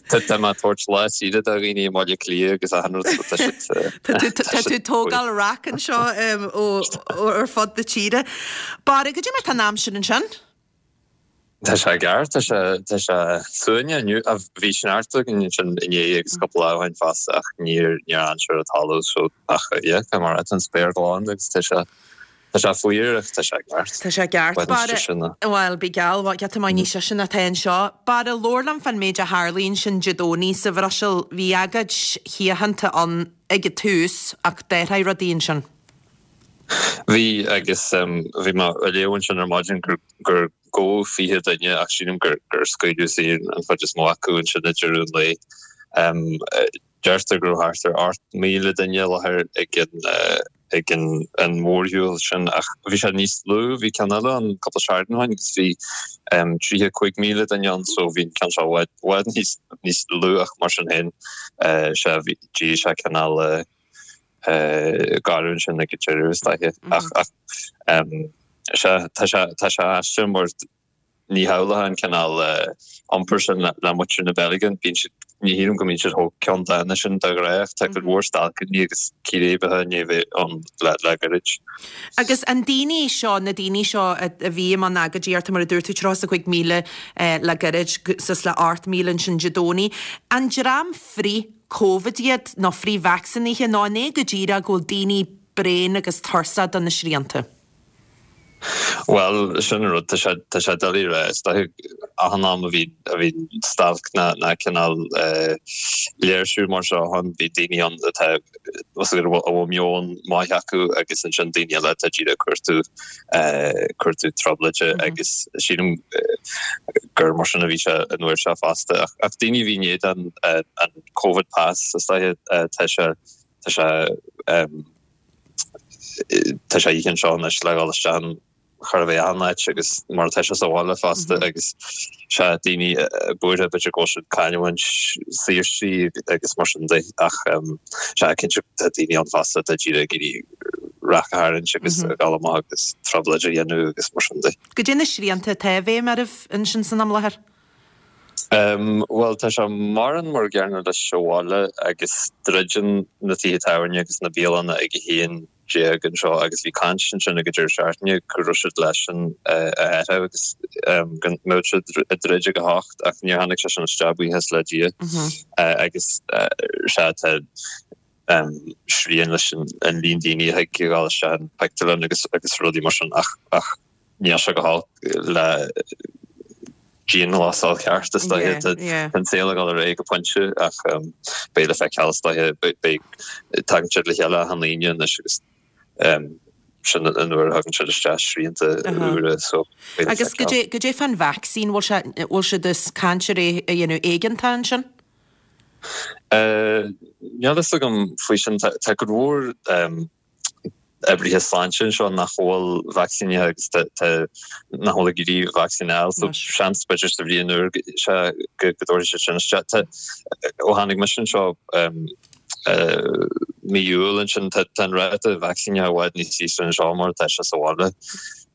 tá, tá mé ag tabhairt lá saoire do dhaoine i mBaile Átha Cliath agus achan rud so tá siad, Tá tú, tá tú ag tógáil raic anseo ó, ó ar fud na tíre. Barra, goidé mar tá an aimsir ansin? Tá sé ceart, tá sé, tá sé suaimhneach inniu. Bhí sneachta againn ansin inné agus cúpla lá ó shin fosta ach níor, níor fhan sé ar an talamh so ach yeah, tá mar tá an spéir glan agus tá sé, tá sé fuar ach tá sé ceart. Tá sé ceart. Barra, bhuel, bí geall, giota maith níos sise ná tá anseo. Barra, labhair liom fán méid a tharlaigh ansin Dé Domhnaigh sa Bhruiséil. Bhí agóid shíochánta ann ag an tús ach d'athraigh rudaí ansin. Bhí, agus bhí mé ag léamh ansin ar maidin gur gur gabhadh 20 duine ach sílim gur gur scaoileadh saor an chuid is mó acu ansin ag deireadh an lae. Deirtear go raibh thart ar 8,000 duine i láthair ag an ag an an mhórshiúl sin ach bhí sé níos lú, bhí ceann eile ann cúpla seachtain ó shin agus bhí 35,000 duine ann so bhí an ceann seo i bhfad níos níos lú ach mar sin féin sea bhí d'éirigh sé cineál garbh ansin ag an deireadh is dóiche. Ach sea, tá sé tá sé aisteach mar ní shamhlófá an cineál iompair sin le muintir na Beilge. Bíonn siad, ní shílim go mbíonn siad chomh ceanndána sin de ghnáth ach tá cuid mhór stailceanna agus círéibeacha i ndiaidh a bheith ann le le gairid. Agus an daoine seo, na daoine seo a bhí i mbun agóidíochta, mar a dúirt tú, 35,000 le gairid, suas le 8,000 ansin Dé Domhnaigh, an dream frith Covid iad, nó frith-vacsaínithe, nó an é go díreach go bhfuil daoine bréan agus tuirseach de na srianta? Bhuel, sin an rud, tá sé, tá sé doiligh a rá. Is dóiche achan am a bhí, a bhí stailc ná, ná cineál léirsiú mar seo ann, bhí daoine ann atá, a bhfuil meon maith acu agus ansin daoine eile atá díreach ag cuartú, cuartú trioblóide agus sílim gur mar sin a bhí sé an uair seo fosta. Ach daoine a bhí in éadan an Covid Pass is dóiche tá sé tá sé tá sé oíche anseo anois le dhul isteach in chóir a bheith achan áit agus mar atá sé sa bhaile fosta agus sea daoine buartha b'fhéidir go bhfuil siad ag cailliúint saoirsí agus mar sin de ach sea cinnte tá daoine ann fosta atá díreach ag iarraidh raic a tharraingt agus a dhul amach agus trioblóid a dhéanamh agus mar sin de. Goidé na srianta atá i bhfeidhm oraibh ansin san am i láthair? Bhuel, tá sé mórán mar an gcéanna leis sa bhaile agus druideann na tithe tábhairne agus na bialanna ag 11 anseo agus bhí caint ansin ag an deireadh seachtaine go raibh siad leis sin a athrú agus go mbeadh siad ag druid ag 8 ach níor tháinig sé sin isteach buíochas le Dia agus sea tá srian leis an líon daoine a thig a dhul isteach an pictiúrlann agus agus rudaí mar sin ach ach níl sé go holc le dianghlasáil cheart is dóiche. Tá an saol ag dul ar aghaidh go pointe ach beidh le feiceáil is dóiche beidh tagann siad le chéile achan Aoine anois agus sin an uair a thagann siad isteach srianta úra so beidh le Agus feiceáil. goidé fán vacsaín, bhfuil sé bhfuil siad ag caint ar é a dhéanamh éigeantach ansin? Níl fhios agam faoi sin. Tá cuid mhór oibrithe sláinte anseo nach bhfuil vacsaínithe agus tá nach bhfuil ag iarraidh vacsaín a fháil so seans b'fhéidir sa bhliain úr sea go dtabharfaidh siad sin isteach. Tá ó tháinig mise anseo mí Iúil ansin tá an ráta vacsaínithe i bhfad níos ísle anseo mar atá sé sa bhaile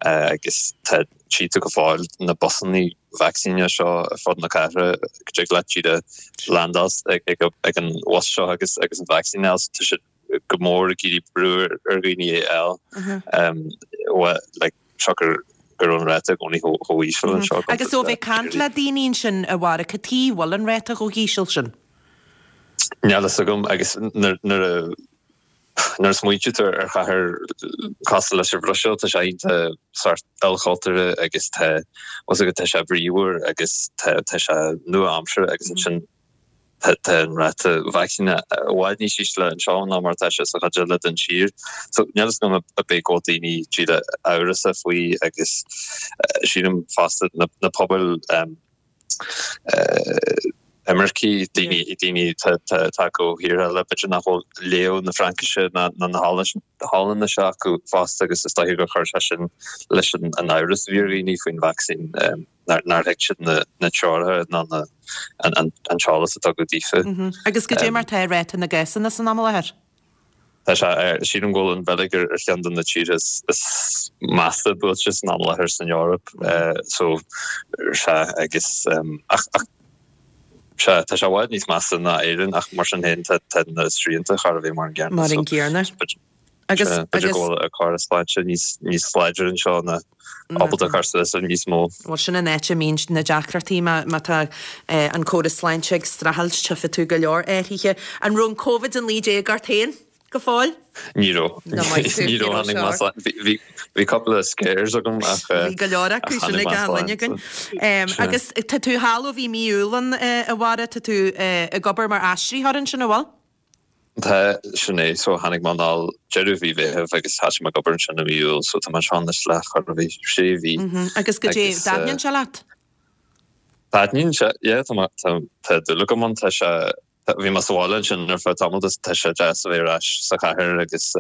agus tá tchí tú go fóill na busanna vacsaíne seo ar fud na cathrach go dtig leat díreach landáil ag an bhus seo agus agus an vacsaín a fháil. Tá siad go mór ag iarraidh brú ar dhaoine é a fháil like siocair go raibh an ráta i gcónaí chomh híseal anseo. Agus ó bheith ag caint le daoine ansin a Bharra, cad chuige a bhfuil an ráta chomh híseal sin? Níl fhios agam agus nuair a Nuair a smaointíonn tú ar chathair cosúil leis an Bhruiséil, tá sé iontach sórt ilchultúrtha agus tá, tá fhios agat, tá sé bríomhar agus tá, tá sé nua-aimseartha agus ansin. Tá an ráta vacsaíne i bhfad níos ísle anseo ná mar atá sé sa chuid eile den tír. So níl fhios agam ab é go bhfuil daoine díreach amhrasach faoi agus sílim fosta na pobail imircigh, daoine daoine atá tagtha ó thíortha eile, b'fhéidir nach bhfuil léamh na Fraincise ná na hOllainnise acu fosta agus is dóiche gur chuir sé sin leis an amhras a bhí ar dhaoine faoin vacsaín. nár thuig siad na treoracha ná an t-eolas a tugadh daofa. Agus goidé mar tá ráta na gcásanna san am i láthair? Tá sé ar, sílim go bhfuil an Bheilg ar cheann de na tíortha is measa buailte san am i láthair san Eoraip. So, sea, agus, ach, ach, sea, tá sé i bhfad níos measa ná Éirinn ach mar sin féin tá na srianta chóir a bheith mar an gcéanna. Mar an gcéanna. Agus, B'fhéidir go bhfuil an córas sláinte níos, níos láidre anseo ná ábalta cur suas le níos mó. Bhuel, sin an áit a mbíonn na deacrachtaí, má, má tá an córas sláinte ag streachailt, tchífidh tú go leor athruithe. An raibh an Covid-19 ort féin go fóill? Ní raibh. Ní raibh, ní raibh, tháinig mé slán. Bhí, bhí, bhí cúpla scares agam ach, Bhí go leor acu, sin ag achan duine againn. Agus tá tú thall ó bhí mí Iúil ann, a Bharra, tá tú ag obair mar aistritheoir ansin, an bhfuil? Tá, sin é. So tháinig mé anall deireadh mhí Mheithimh agus thosaigh mé ag obair ansin i mí Iúil, so tá mé anseo anois le chóir a bheith sé mhí. Agus goidé, dtaitníonn sé leat? Taitníonn sé, yeah, tá mé, tá, tá dúil agam ann, tá sé, bhí mé sa bhaile ansin ar feadh tamaill agus tá sé deas a bheith ar ais sa chathair agus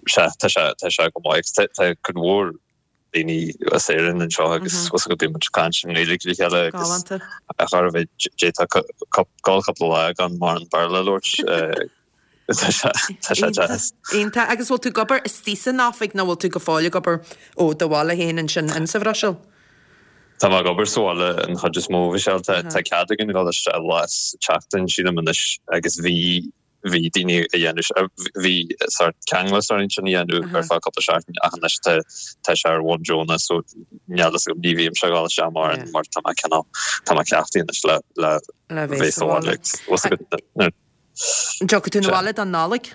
sea, tá sé, tá sé go maith agus tá, tá cuid mhór daoine as Éirinn anseo agus bhfuil a fhios agat bíonn muid ag caint i nGaeilge le chéile agus chóir a bheith d'fhéadfá dul cúpla lá gan mórán Béarla a labhairt. Tá sé tá sé deas. Iontach. Agus bhfuil tú ag obair istigh san oifig nó bhfuil tú go fóill ag obair ó do bhaile féin ansin insa Bhruiséil? Tá mé ag obair sa bhaile an chuid is mó, Michelle. Tá cead againn dul isteach lá sa tseachtain sílim anois agus bhí bhí daoine a dhéanamh, bhí sórt ceanglas orainn sin a dhéanamh ar feadh cúpla seachtain ach anois tá tá sé ar bhonn deonach so níl fhios agam, ní bhímse ag dul isteach mórán mar tá mé cineál, tá mé cleachtaithe anois le le Le bheith sa bhaile. Bhfuil fhios agat nuair. An dtiocfaidh tú 'na bhaile don Nollaig?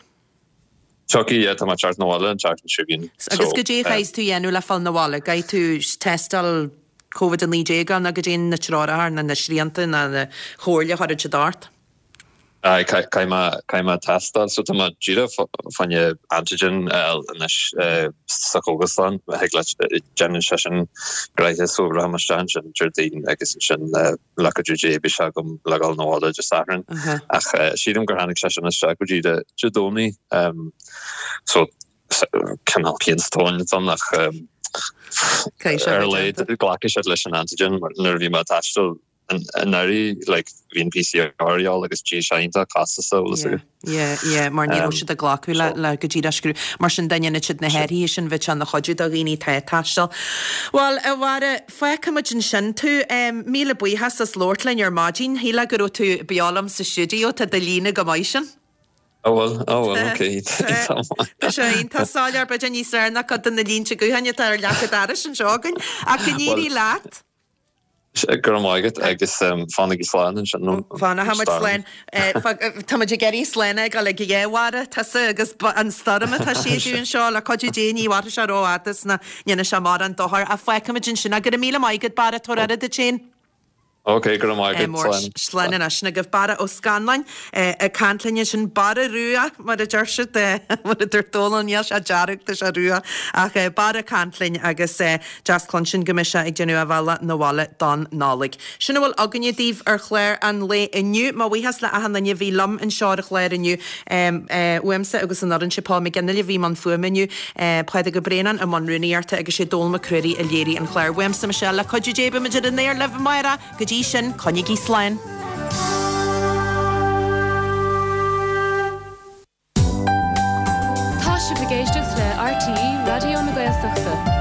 Tiocfaidh, yeah, tá mé ag teacht 'na bhaile an tseachtain seo chugainn. Agus goidé a chaithfeas tú a dhéanamh le fáil 'na bhaile? Caithfidh tú tástáil Covid-19 nó goidé na treoracha nó na srianta nó na comhairle a chuireann siad ort? Aye, caithfidh mé, caithfidh mé tástáil. So tá mé díreach fá choinne antigen a fháil anois sa chógaslann. Thig leat, déanann sé sin gnoithe so rachaidh mé isteach ansin Déardaoin agus ansin le cuidiú Dé beidh sé agam le dhul 'na bhaile Dé Sathairn. Ach sílim gur tháinig sé sin isteach go dtí Dé Domhnaigh. So cineál pian sa tóin atá ann ach ar a laghad glacfaidh siad leis an antigen mar nuair a bhí mé ag taisteal anuraidh like bhí an PCR a dhíobháil agus bhí sé iontach costasach bhfuil fhios agat. Yeah, yeah, mar ní raibh siad ag glacadh le le go díreach scrúdú. Mar sin dá ndéanfadh siad na hathruithe sin bheadh sé ina chuidiú do dhaoine atá ag taisteal. Bhuel, a Bharra, fágfaimid ansin tú. Míle buíochas as labhairt linn ar maidin. Shílfeá go raibh tú beo liom sa stiúideo, tá do líne go maith sin. Ó bhfuil, ó bhfuil, ok, tá maith. Tá sé iontach soiléir, b'fhéidir níos fearr ná cuid de na línte gutháin atá ar leac an dorais anseo againn. Ach go n-éirí leat. Go raibh maith agat agus fanaigí slán ansin ón Fanfaidh muid slán. Tá muid ag iarraidh slán a fhágáil ag a dhá Bharra, tusa agus an stoirm atá ag séideadh anseo. Le cuidiú Dé ní mhairfidh sé rófhada is ná ndéanfaidh sé mórán dochair. Ach fágfaimid ansin é. Go raibh míle maith agat Barra, tabhair aire duit féin. Ok, go raibh maith agat. Slán. Slán anois. Sin agaibh Barra Ó Scanláin ag caint linn ansin. Barra Rua mar a deir siad, mar a dúirt Dónal, níl sé dearg, tá sé rua. Ach Barra ag caint linn agus Deas cluinstin go mbeidh sé ag déanamh a bhealach 'na bhaile don Nollaig. Sin a bhfuil againne daoibh ar chlár an lae inniu. Mo bhuíochas le achan duine a bhí liom anseo ar an chlár inniu. Uaimse agus an fhoireann, sé Paul McGinley a bhí i mbun fuaime inniu, Pádraig Ó Braonáin i mbun rúnaíochta agus sé Dónal Mac Ruairí a léirigh an clár. Uaimse, Michelle, le cuidiú Dé beimid ar an aer libh amárach. Go dtí sin, coinnigí slán. Tá sibh ag éisteacht le RTÉ Raidió na Gaeltachta.